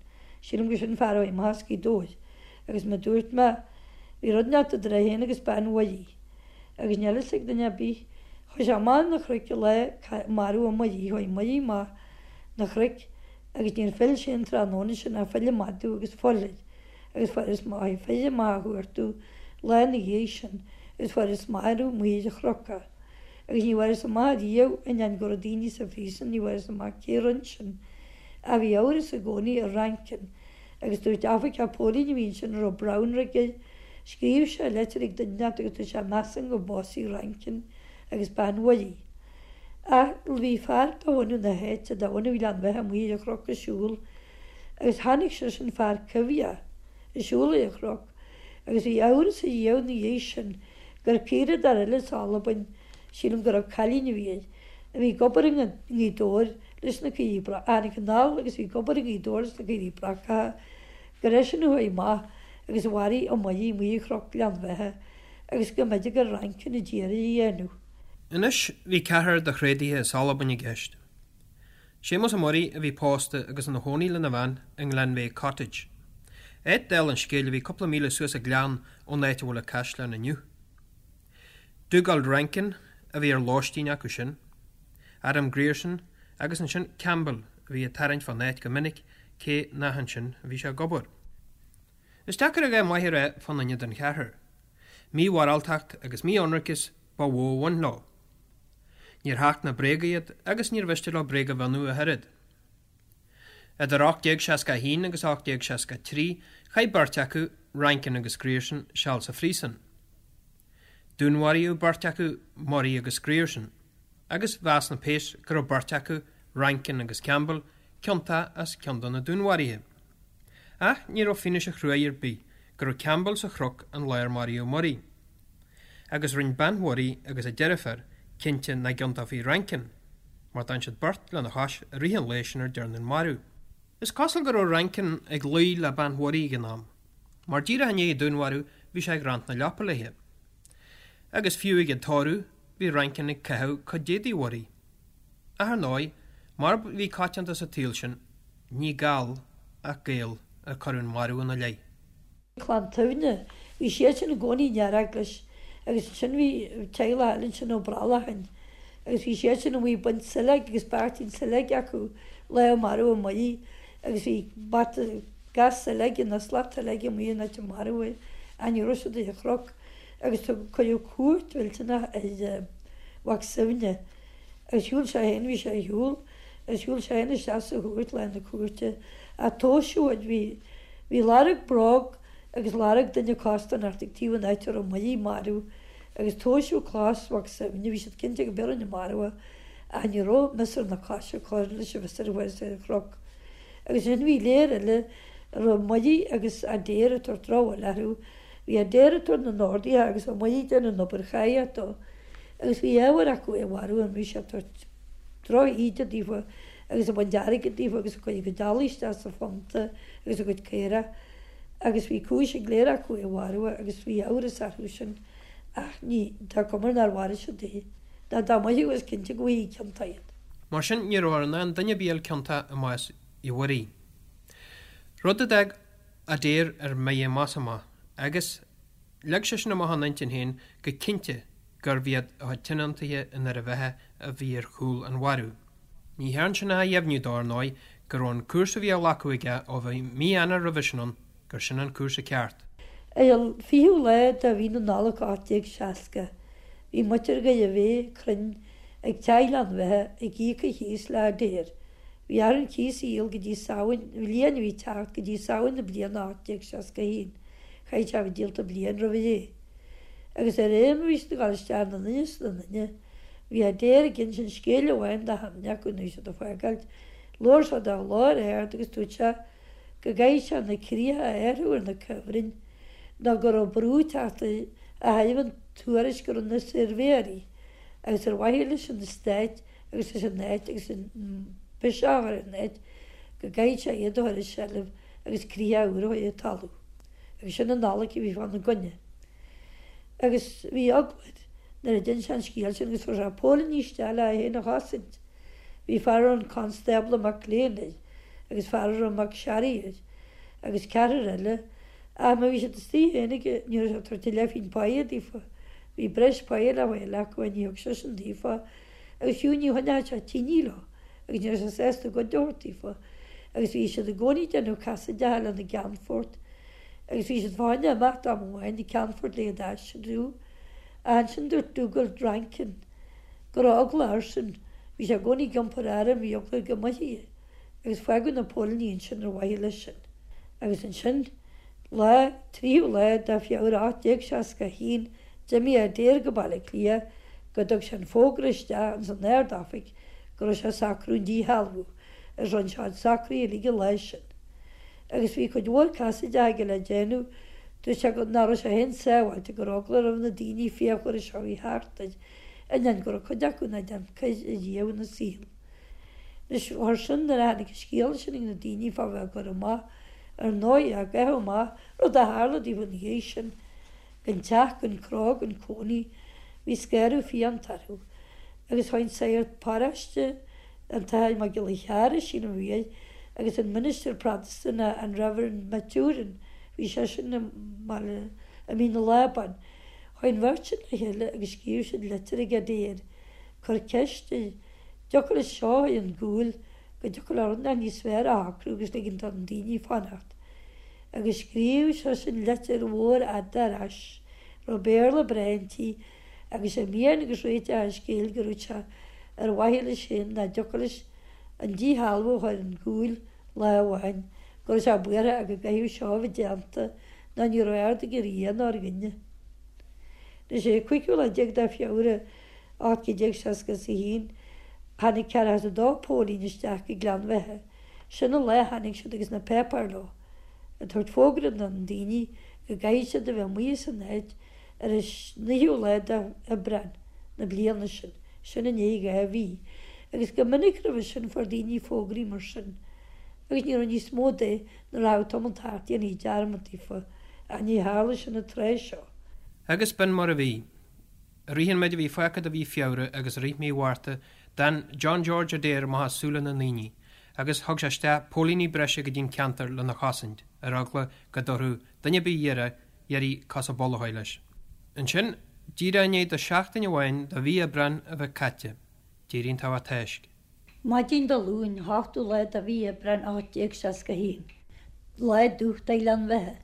Speaker 4: sílim gur sin fear a chuaigh amach as Gaoth Dobhair, agus mar dúirt mé, bhí rud inteacht idir é féin agus bean Mhuirí, agus níl fhios ag duine ar bith, chuaigh sé amach ar na cnoic an lá maraíodh Muirí, chuaigh Muirí amach na cnoic agus níor phill sé an tráthnóna sin ach phill an madadh agus fuil air, agus fuarthas maith, fir amach á chuartú lá ina dhiaidh sin agus fuarthas marbh amuigh ar an chnoc é. Agus ní bhfuarthas amach riamh, ainneoin go raibh daoine sa phríosún, ní bhfuarthas amach cé rinne sin. Ach bhí amhras i gcónaí ar Rankin. Agus dúirt oifigeach póilíní a bhí ansin a raibh Brownrigg air, scríobh sé leitir ag duine inteacht agus dúirt sé measaim gur básaigh Rankin agus bean Mhuirí. Ach bhí fear de bhunadh na háite, de bhunadh Ghleann Bheatha amuigh ar an chnoc ag siúl agus chonaic seisean fear coimhthíoch ag siúl ar an chnoc agus bhí amhras ariamh ina dhiaidh sin gur caoradóir eile as Albain, sílim go raibh cailín a bhí air, a bhí ag obair i nGaoth Dobhair leis na caoirigh a tháinig anall agus bhí ag obair i nGaoth Dobhair leis na caoirigh brocacha, gur eisean a chuaigh amach agus a mharaigh Ó Muirí amuigh ar Chnoc Ghleann Bheatha agus go mb'fhéidir gur Rankin a d'iarraidh a dhéanamh.
Speaker 3: Anois bhí ceathrar de thréadaithe as Albain i gceist. Séamus Ó Muirí a bhí pósta agus ina chónaí lena bhean i nGlenveagh Cottage. Áit dála an scéil a bhí cúpla míle suas an gleann ón áit a bhfuil an caisleán inniu. Dugald Rankin a bhí ar lóistín acu sin, Adam Grierson agus ansin Campbell a bhí ag tarraingt fán áit go minic cé nach ansin a bhí sé ag obair. Is deacair a dhath maith a rá fá dhuine den cheathrar. Mímhoráltacht agus mí-ionraiceas ba mhó a bhain leo. Níor thacht na bréaga iad agus níor mhiste leo bréag a mhionnú ach oiread. Idir 1861 agus 1863 chaith beirt acu, Rankin agus Grierson, seal sa phríosún. Dúnmharaíodh beirt acu, Murray agus Grierson, agus mheas na péas go raibh beirt acu, Rankin agus Campbell, ciontach as ceann de na dúnmharuithe. Ach ní raibh fianaise chruaidh ar bith go raibh Campbell sa chnoc an lá ar maraíodh Murray. Agus rinne bean Mhurray agus a deirfiúr cinnte nach gciontófaí Rankin, mar d'fhan siad beirt lena chois i rith an lae sin ar dearnadh an marú. Is cosúil go raibh Rankin ag luí le bean Mhurray ag an am, mar díreach i ndiaidh an dúnmharú bhí sé ag roinnt na leapa léi. Agus fiú ag an tórramh bhí Rankin ag caitheamh cuid d'éadaí Mhurray. Ach ar ndóigh, mar a bhí coitianta sa tsaol sin, ní Gall ach Gael ar cuireadh an marú ina leith.
Speaker 4: Clann tSuibhne. Bhí siadsan i gcónaí in Earaglas agus ansin bhí teaghlach eile ansin Ó Brollacháin agus bhí siadsan amuigh ag baint sileog agus beairtín sileoige acu lá a maraíodh Muirí agus bhí bata gas sileoige nó slat sileoige amuigh in áit a maraíodh é ach ní raibh siad ar an chnoc agus tugadh cuireadh cuairt mhillteanach ar Mhac Suibhne agus shiúil sé féin, bhí sé ar shiúl, agus shiúil sé féin isteach sa chúirt lá na cúirte ach tomhaiseadh, bhí, bhí lorg bróg agus lorg duine costarnocht ag taobh an áit a raibh Muirí marbh agus tomhaiseadh cos Mhac Suibhne, bhí siad cinnte go b'é a rinne an marú é ach ní raibh miosúr na coise ag cur leis an mhiosúr a fuarthas ar an chnoc. Agus ansin bhí léir eile a raibh Muirí agus Adair ag tabhairt drochbhail orthu, bhí Adair ag tabhairt na n-orduithe agus Ó Muirí ag déanamh an obair cháidheach dó. Agus bhí ábhar acu é a mharú an raibh sé ag tabhairt droch-íde daofa agus ag baint airgid daofa agus ag cur a gcuid eallaigh isteach sa phunta agus a gcuid caorach agus bhí cúis ag léir acu é a mharú agus bhí amhras orthu sin ach ní, tá cuma air nár mharaigh siad é. Ná dá mbeadh is cinnte go bhfaighidh ciontach iad.
Speaker 3: Mar sin ní rabhthar in ann duine ar bith a fháil ciontach i mbás Uí Mhuirí. Rud a d'fhág Adair ar mire amach is amach agus. Leag seisean amach ina intinn féin go cinnte gurbh iad a chuid tionóntaithe i nDoire Bheatha a bhí ar chúl an mharú. Ní thearn sin ach a dheimhniú dó, ar ndóigh, go raibh an cúrsa a bhí á ghlacadh aige ó bhí mí Eanáir roimhe sin ann, gur sin an cúrsa ceart.
Speaker 4: Ar an 20ú lá de mhí na Nollag 1860, bhí muintir Dhoire Bheatha cruinn ag Teach Ghleann Bheatha ag íoc an chíos le Adair. Bhí orthu an cíos a dhíol go dtí Samhain, an bhliain a bhí ag teacht, go dtí Samhain na bliana 1861. Chaithfeadh sé a bheith díolta bliain roimh ré. Agus de réir mar a bhí siad ag dul isteach ina nduine is ina nduine. Bhí Adair ag insint scéil amháin do dhuine acu nuair a bhí siad ag fágáilt. Labhair sé de ghlór ard agus dúirt sé go gcaithfeadh sé na críocha a athrú ar na cuibhrinn nó go raibh brú ag teacht ó thaobh an tuairisc a rinne na suirbhéirí agus ar mhaithe leis an stát agus leis an áit agus an biseach a chur ar an áit go gcaithfeadh sé iad a chur i seilbh agus críocha úr a chur ar talamh. Agus sin an loighic a bhí fána gcoinne. Agus bhí eagla air nuair a d'inis sé an scéal sin agus fuair sé póilíní isteach le é féin a chosaint. Bhí fear a raibh an Constábla McLean air agus fear a raibh McSharry air agus ceathrar eile ach má bhí siad istigh féinig ní raibh sé ag tabhairt a leathphingin páighe daofa. Bhí breis páighe le fáil acu ach ní thug seisean daofa agus fiú ní choinneodh sé tine leo agus ní raibh sé sásta cuid a thabhairt daofa agus bhí siad i gcónaí ag déanamh casaideacha lena gceannfort agus bhí siad fá choinne imeacht am amháin an ceannfort le iad a aistriú ach ansin dúirt Dugald Rankin go raibh eagla airsean, bhí sé i gcónaí ag iompar airm, bhí eagla air go mbáithfí é agus fágadh na póilíní ansin ar mhaithe leis sin. Agus ansin, lá, 3ú lá de Feabhra 1861, d'imigh Adair go Baile Átha Cliath go dtug sé an fógra isteach ins an Ard-Oifig go raibh sé ag socrú an díshealbhú, agus rinne sé a chuid socruithe uilig an lá sin. Agus bhí cuid mhór casaideacha aige le déanamh, dúirt sé go, nach raibh sé féin sábháilte, go raibh eagla roimh na daoine fíochmhara seo a bhí thart air, ainneoin go raibh cuid acu nach déan coir ariamh ina saol. Anois, chuir sin, nuair a tháinig an scéala sin ag na daoine fá bheith á gcur amach, ar ndóigh, á gcaitheamh amach, rud a tharla daofa ina dhiaidh sin, gan teach, gan cró, gan cónaí, bhí scanradh fiánta orthu. Agus chuaigh an sagart paróiste, an tAthair Mac Giolla Chearra, sílim a bhí air, agus an ministir Protastúnach, an Reverend Maturin, bhí seisean i mBaile, i Mín na Lábán, chuaigh an bheirt sin le chéile agus scríobh siad litir ag Adair, cur ceist air, dtiocfadh leis seo a chur ar an gcúl, go dtiocfadh le rud inteacht níos fearr a shocrú agus ligean do na daoine fanacht. Agus scríobh seisean litir mhór fhada ar ais, raibh Béarla breá inti, agus sé mian agus réiteach an scéil go raibh sé ar mhaithe leis féin nach dtiocfadh leis an díshealbhú a chur ar an gcúl lá amháin, go raibh sé buartha ach go gcaithfeadh seo a bheith déanta nó ní raibh aird aige ar Dhia ná ar dhuine. Anois ar an cúigiú lá déag de Feabhra 1861, tháinig 42 póilín isteach go Gleann Bheatha. Sin an lá a tháinig siad agus na páipéir leo, ag tabhairt fógra do na daoine go gcaithfidh siad a bheith amuigh as an áit ar an naoú lá de Aibreán na bliana sin, sin i ndiaidh 2 mhí. Agus go minic roimhe sin fuair daoine fógraí mar sin agus ní raibh níos mó de nuair a rachadh tamall thart dhéanfaí dearmad daofa, ach ní tharla sin an tráth seo.
Speaker 3: Agus b'in mar a bhí. I rith an méid a bhí fágtha de mhí Feabhra agus i rith mí Mhárta, d'fhan John George Adair amach as súile na ndaoine, agus thug sé isteach póilíní breise go dtí an ceantar lena chosaint, ar eagla go dtabharfadh duine ar bith iarraidh cos an mhullaigh leis. Ansin, díreach i ndiaidh do sheachtain amháin de mhí Aibreáin a bheith caite, d'éirigh an togha táisc.
Speaker 4: Maidin Dé Luain, 8ú lá de mhí Aibreáin 1861, lá dubh do Ghleann Bheatha,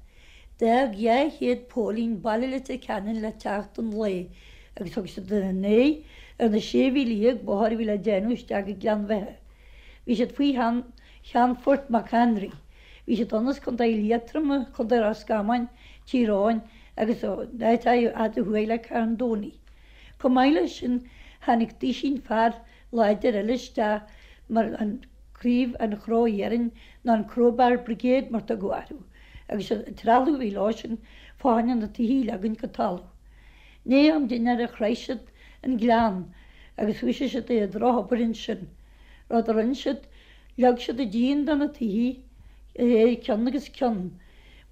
Speaker 4: d'fhág 200 póilín baile Leitir Ceanainn le teacht an lae agus thug siad a n-aghaidh ar na sé mhíle dhéag bóthair a bhí le déanamh isteach go Gleann Bheatha. Bhí siad faoi Cheannfort McHenry. Bhí siad ann as Contae Liatroma, Contae Ros Comáin, Tír Eoghain agus ó áit fhada thuaidh le Carndonagh. Chomh maith leis sin, tháinig duisín fear láidir eile isteach mar an Craobh an Chró Iarainn nó an Crowbar Brigade mar tugadh orthu, agus an trealamh a bhí leo sin fá choinne na tithe a leagaint go talamh. I ndiaidh am dinnéara shroich siad an gleann agus thoisigh siad ar an drochobair ansin. Rud a rinne siad, leag siad an díon de na tithe de réir ceann agus ceann,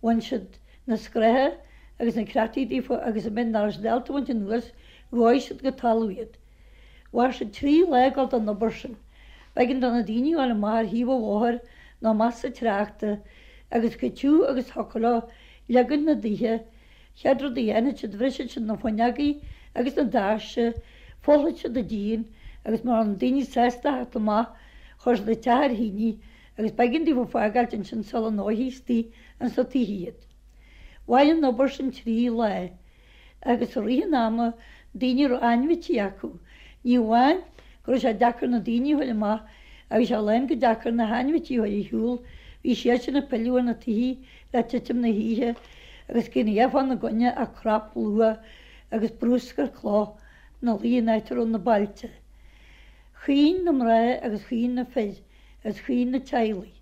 Speaker 4: bhain siad na scratha agus na creataí díofa agus an méid nach raibh siad ábalta a bhaint anuas, dhóigh siad go talamh iad. Mhair sé 3 lá ag dul don obair sin. B'éigean do na daoine a ghabháil amach ar thaobh an bhóthair nó amach sa tráchta agus chomh tiubh agus thiocfadh leo leagaint na dtithe. Chéad rud a dhéanfadh siad bhrisfeadh siad na fuinneogaí agus na doirse, phollfadh siad an díon agus mura raibh na daoine sásta a theacht amach chuir siad an teach ar thine agus b'éigean daofa fágáilt ansin sula ndófaí istigh ins na tithe iad. Mhair an obair sin 3 lá. agus i rith an ama daoine a raibh ainmhití acu. Ní amháin go raibh sé deacair na daoine a fháil amach ach bhí sé lán go deacair na hainmhití a chur ar shiúl, bhí siadsan ag pilleadh ar na tithe le titim na hoíche agus cad a bhí fána gcoinne ach crap luath agus bruscar cloch. ina luí an áit a raibh na bailte. Chaoin na mná agus chaoin na fir agus chaoin na teaghlaigh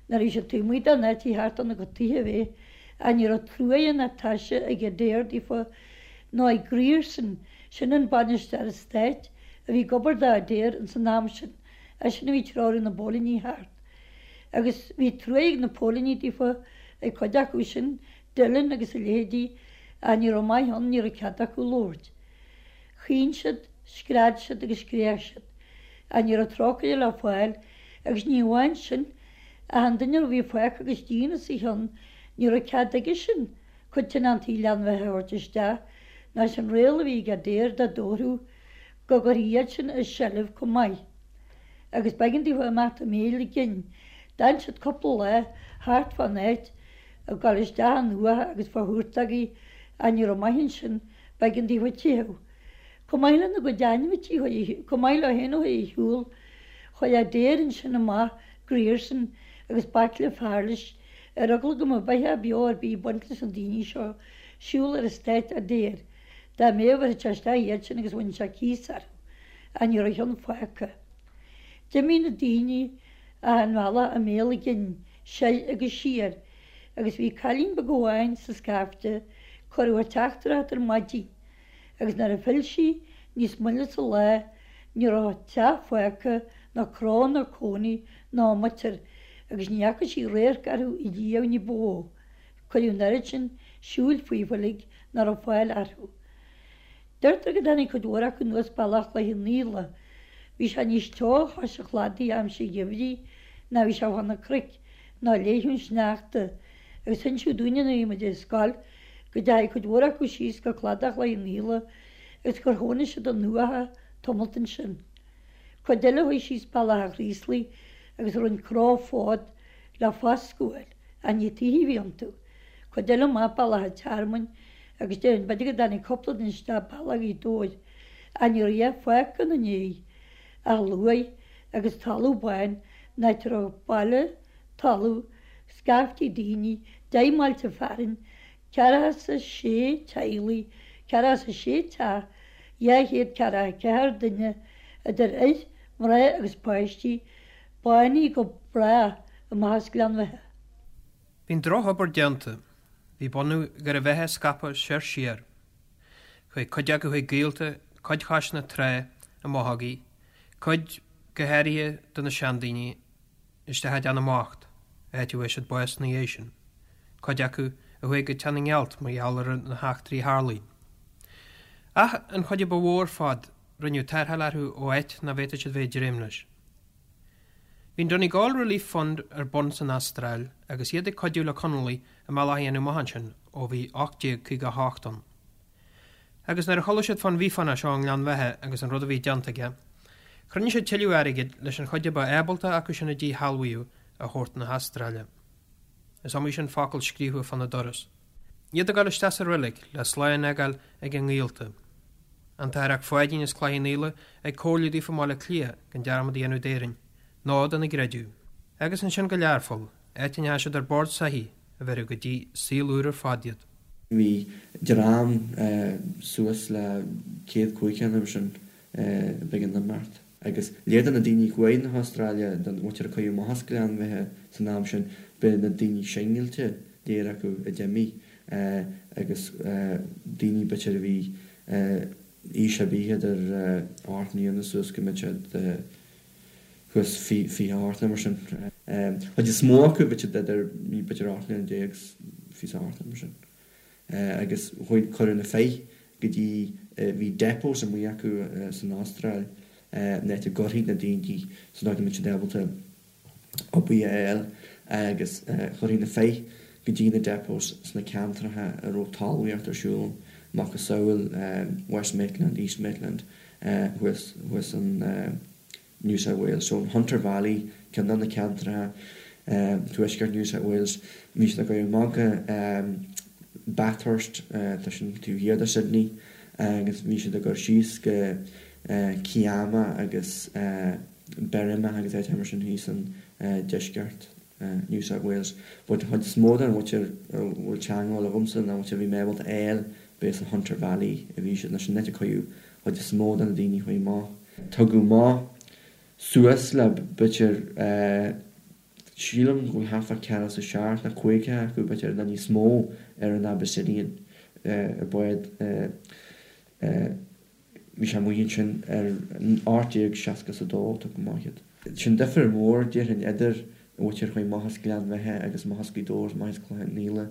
Speaker 4: nuair a bhí siad taobh amuigh den áit a theacht óna gcuid tithe a bheith ach ní raibh truaighe ná taise ag Adair daofa nó ag Grierson, sin an bainisteoir eastáit a bhí ag obair do Adair ins an am sin, eisean a bhí ag treorú na bpóilíní thart. Agus bhí truaighe ag na póilíní daofa, ag cuid acu sin, Dillon agus a leithéidí, ach ní raibh maith ann, ní raibh cead acu labhairt. Chaoin siad, scread siad agus scréach siad, ach ní raibh trócaire le fáil, agus ní amháin sin, ach an duine a bhí fágtha agus díon os a chionn, ní raibh cead aige sin cuid tionóntaí Ghleann Bheatha a thabhairt isteach, nó sin riail a bhí ag Adair dá dtabharfadh go gcuirfí iad sin i seilbh chomh maith. Agus b'éigean daofa imeacht i mbéal a gcinn. D'fhan siad cúpla lá thart fán áit, ag dul isteach in uatha agus fá thúrtógaí, ach ní raibh maith ansin, B'éigean daofa teitheadh. Chomh maith lena gcuid ainmhití, chomh maith leo féin a chuaigh ar shiúl, chuir Adair ansin amach Grierson agus baicle fear leis, ar eagla go mbeadh beatha beo ar bith ag baint leis na daoine seo, siúl ar eastát Adair. Dá mbeadh, bhéarfadh sé isteach iad sin agus bhainfeadh sé cíos orthu. Ach ní raibh a cheann fágtha. D'imigh na daoine achan bhealach i mbéal a gcinn, soir agus siar, agus bhí cailín beag amháin sa scaifte, cuireadh a teachtaireacht ar maidin, agus nuair a phill sí níos moille sa lá ní raibh teach fágtha ná cró ná cónaí ná muintir agus ní fhaca sí radharc orthu riamh ní ba mhó. Cuireadh an oiread sin siúil fúthu uilig nach raibh fáil orthu. Deirtear go dtáinig cuid mhór acu anuas bealach Chloich Cheann Fhaola. Bhí sé níos teo chois an chladaigh aimsir an gheimhridh ná bhí sé fá na cnoic ná léitheadh an sneachta agus hinsíodh dúinne nuair a bhí muid ar scoil go dteachaigh cuid mhór acu síos go cladach Chloich Cheann Fhaola agus gur chónaigh siad in uatha tamalt ansin. Cuid eile chuaigh síos bealach an Chraoslaigh agus rinne cró fód le foscadh a fháil ach ní tithe a bhí iontu. Cuid eile amach bealach an Tearmainn agus déarfainn b'fhéidir go dtáinig cúpla duine isteach bealach Ghaoth Dobhair ach ní raibh a dhath fágtha ina ndiaidh ach luaith agus talamh bán an áit a raibh baile, talamh, scaiftí daoine, 10 mbailte fearainn, 46 teaghlaigh, 46 teach, 244 duine, idir fhir, mná agus páistí, bánaithe go brách amach as Gleann Bheatha.
Speaker 3: Bhí an drochobair déanta. Bhí bunadh Dhoire Bheatha scaipthe soir siar. Chuaigh cuid acu chuig gaolta, cuid chois na trá i mbothógaí, cuid, go háirithe de na seandaoine, isteach i dTeach na mBocht, áit a bhfuair siad bás ina dhiaidh sin, cuid acu a chuaigh go Teach na nGealt mar gheall ar na heachtraí a tharlaigh. Ach an chuid a ba mhó ar fad, rinneadh tarrtháil orthu ó áit nach bhféadfadh siad bheith ag dréim leis. Bhí an Donegal Relief Fund ar bun san Astráil agus iad ag cuidiú le Conallaigh a mbealach a dhéanamh amach ansin ó bhí 1858 ann. Agus nuair a chuala siad fán Mhíofánach seo i nGleann Bheatha agus an rud a bhí déanta aige, chruinnigh siad tuilleadh airgid leis an chuid a ba ábalta acu sin a díshealbhaíodh a thabhairt na hAstráile. Is iomaí sin focal scríofa fána doras. Iad ag dul isteach sa reilig le slán a fhágáil ag a ngaolta. An tAthair 'Ac Pháidín as Cloich Cheann Fhaola ag comhairliú daofa i mBaile Átha Cliath gan dearmad a dhéanamh d'Éirinn, ná dena gcreideamh. Agus ansin go Learpholl, áit a ndeachaigh siad ar bord soithigh a bhéarfadh go dtí saol úr ar fad iad.
Speaker 5: Bhí dream suas le 105 nó mar sin b'éigean imeacht. Agus léir do na daoine a chuaigh na hAstráile, don mhuintir a cuireadh amach as Gleann Bheatha san am sin, b'é na daoine singilte léir acu a d'imigh agus daoine b'fhéidir a bhí aois ar bith idir 8 mbliana suas go mbeadh siad thuas 28 nó mar sin. Chuid is mó acu b'fhéidir idir b'fhéidir 18 mbliana is 28 nó mar sin. agus chuaigh, cuireadh na fir go dtí, bhí depots amuigh acu san Astráil, an áit a gcuirfí na daoine sa dóigh go mbeadh siad ábalta obair a fháil agus chuirfí na fir go dtí na depots sna ceantracha a raibh talmhaíocht ar siúl, macasamhail West Maitland, East Maitland, thuas, thuas an. New South Wales. So an Hunter Valley, ceann de na ceantracha tuaisceart New South Wales, bhí siad ag goil amach go Bathurst, tá sin taobh thiar de Sydney, agus bhí siad ag goil síos go Kiama agus Berrima agus áiteacha mar sin thíos in deisceart New South Wales. But an chuid is mó den mhuintir a bhfuil teagmháil agamsa, na muintir a bhí mé ábalta a fháil, b'é sa Hunter Valley a bhí siad, nó sin an áit a cuireadh. Chuid is mó de na daoine a chuaigh amach, tugadh amach suas le b'fhéidir, sílim go bhfuil thart fá ceathracha is a seacht nó caoga acu b'fhéidir nó níos mó ar an Abyssinian, ar bád. Bhí sé amuigh ansin ar 1862, tugadh amach iad. Sin difear mór, déarfainn, idir an mhuintir a chuaigh amach as Gleann Bheatha agus amach as Gaoth Dobhair agus amach as Cloich Cheann Fhaola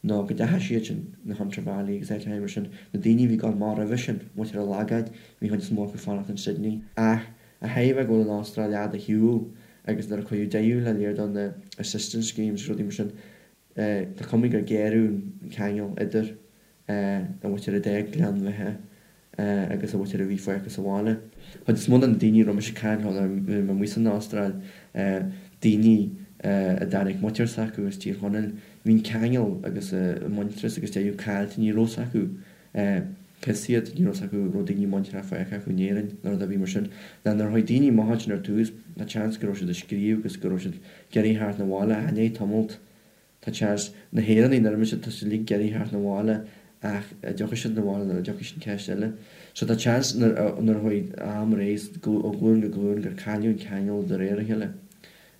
Speaker 5: ná go dteachaigh siad sin, na Hunter Valley agus áiteacha mar sin, na daoine a bhí ag gabháil amach roimhe sin, muintir an Lagáin, bhí an chuid is mó acu ag fanacht in Sydney. Ach a thaobh go bhfuil an Astráil fhada ar shiúl agus nuair a cuireadh deireadh le lear de na assistance schemes agus rudaí mar sin, tá cuma gur géarú an ceangal idir an mhuintir a d'fhág Gleann Bheatha agus an mhuintir a bhí fágtha sa bhaile. Chuid is mó de na daoine a raibh mise ag caint leo nuair a bhí mé amuigh san Astráil, daoine a dtáinig muintir s'acu as Tír Chonaill, bhí an ceangal agus an muintearas agus deireadh caillte, ní raibh 's acu cé hiad, ní raibh 's acu raibh daoine muinteartha fágtha acu in Éirinn nó rud ar bith mar sin. Ná nuair a chuaigh daoine amach ansin ar tús, tá seans go raibh siad ag scríobh agus go raibh siad ag iarraidh theacht 'na bhaile ach i ndiaidh tamalt, Tá seans, na hÉireannaigh nuair a bhí siad, tá siad uilig ag iarraidh theacht 'na bhaile ach a' dtiocfaidh siad 'na bhaile nó nach dtiocfaidh sin ceist eile. So tá seans nuair a, nuair a chuaigh am ar aghaidh ó ghlúin go glúin gur cailleadh an ceangal de réir a chéile.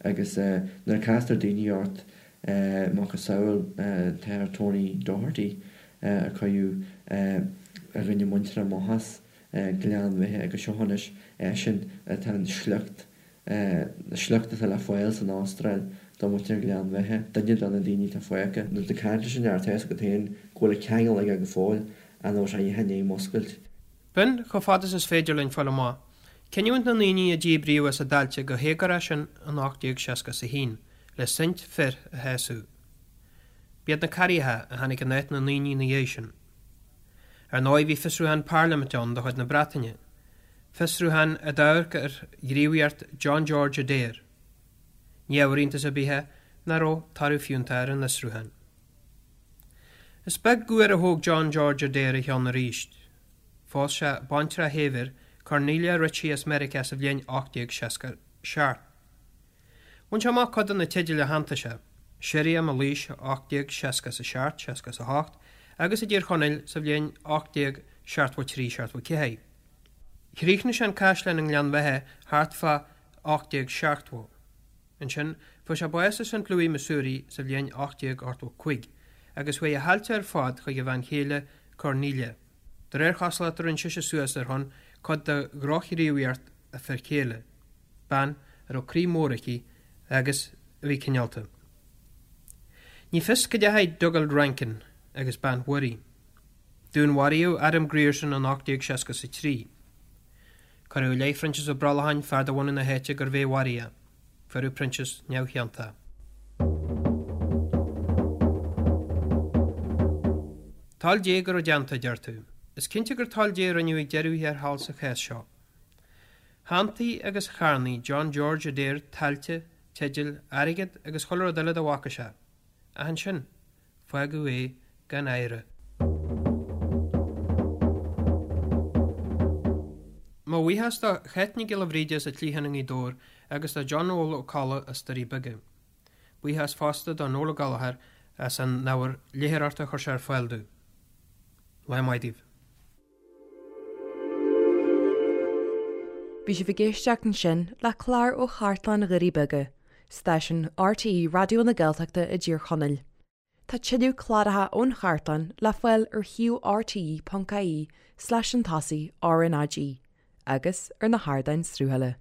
Speaker 5: Agus nuair a castar daoine ort, macasamhail an tAthair Tony Doherty a cuireadh a dhuine muinteartha amach as Gleann Bheatha agus seo anois eisean atá an sliocht sliocht atá le fáil san Astráil do mhuintir Ghleann Bheatha, duine de na daoine atá fágtha. Nuair atá tú ag caint leis an fhear, tá a fhios agat féin go bhfuil an ceangal aige go fóill, ach nach bhfuil sé a dhath i ndiaidh muscailt.
Speaker 3: B'in, chomh fada is is féidir linn fáil amach, cinniúint na ndaoine a díbríodh as a dtailte go héagórach sin in 1861 le saint fir a shásamh. B'iad na Carraigheacha a tháinig in áit na ndaoine ina dhiaidh sin. Ar ndóigh bhí fiosrúchán parlaiminte ann de chuid na Breataine, Fiosrúchán a d'amharc ar ghníomhaíocht John George Adair. Ní ábhar iontais ar bith é nach raibh toradh fiúntach ar an fhiosrúchán. Is beag uair a thóg John George Adair a cheann arís. Phós sé baintreach shaibhir, Cornelia Ritchie as Meiriceá sa bhliain 1867. Bhain sé amach cuid de na teidil a shantaigh sé, Sirriam i Laois 1867, 68 agus i dTír Chonaill sa bhliain 1873, 74. Chríochnaigh sé an caisleán i nGleann Bheatha thart fá 1870. Ansin, fuair sé bás i St. Louis, Missouri sa bhliain 1885 agus chuaigh a thailte ar fad chuig a bhean chéile, Cornelia. De réir chosúlachta rinne sise suas ar shon cuid de dhrochghníomhaíocht a fir chéile, bean a raibh croí mór aici agus a bhí cineálta. Ní fios cá dteachaigh Dugald Rankin agus bean Mhuirí. Dúnmharaíodh Adam Grierson in 1863. Cuireadh i leith Phroinsias Ó Brollacháin, fear de bhunadh na háite, gurbh é a mharaigh é. Fuaireadh Proinsias neamhchiontach. Toil Dé go raibh déanta, a deir tú. Is cinnte gur toil Dé a rinneadh ag deireadh thiar thall sa chás seo. Shantaigh agus charnaigh John George Adair tailte, teidil, airgead agus chuile rud eile dá bhfaca sé. Ach ansin, fágadh é gan oidhre. Mo bhuíochas do Cháit Nic Giolla Bhríde as an Chliathán i nGaoth Dobhair agus do John Noel Ó Colla as Doirí Beaga. Buíochas fosta do Noel Ó Gallchóir as an ábhar léitheoireachta a chuir sé ar fáil dúinn. Lá maith daoibh.
Speaker 1: Bhí sibh ag éisteacht ansin le clár ó Chartlann Dhoirí Beaga, stáisiún RTÉ Raidió na Gaeltachta i dTír Chonaill. Tá tuilleadh cláracha ón chartlann le fáil ar shuíomh rte.ie slash an tosaigh RnaG agus ar na hardáin sruthaithe.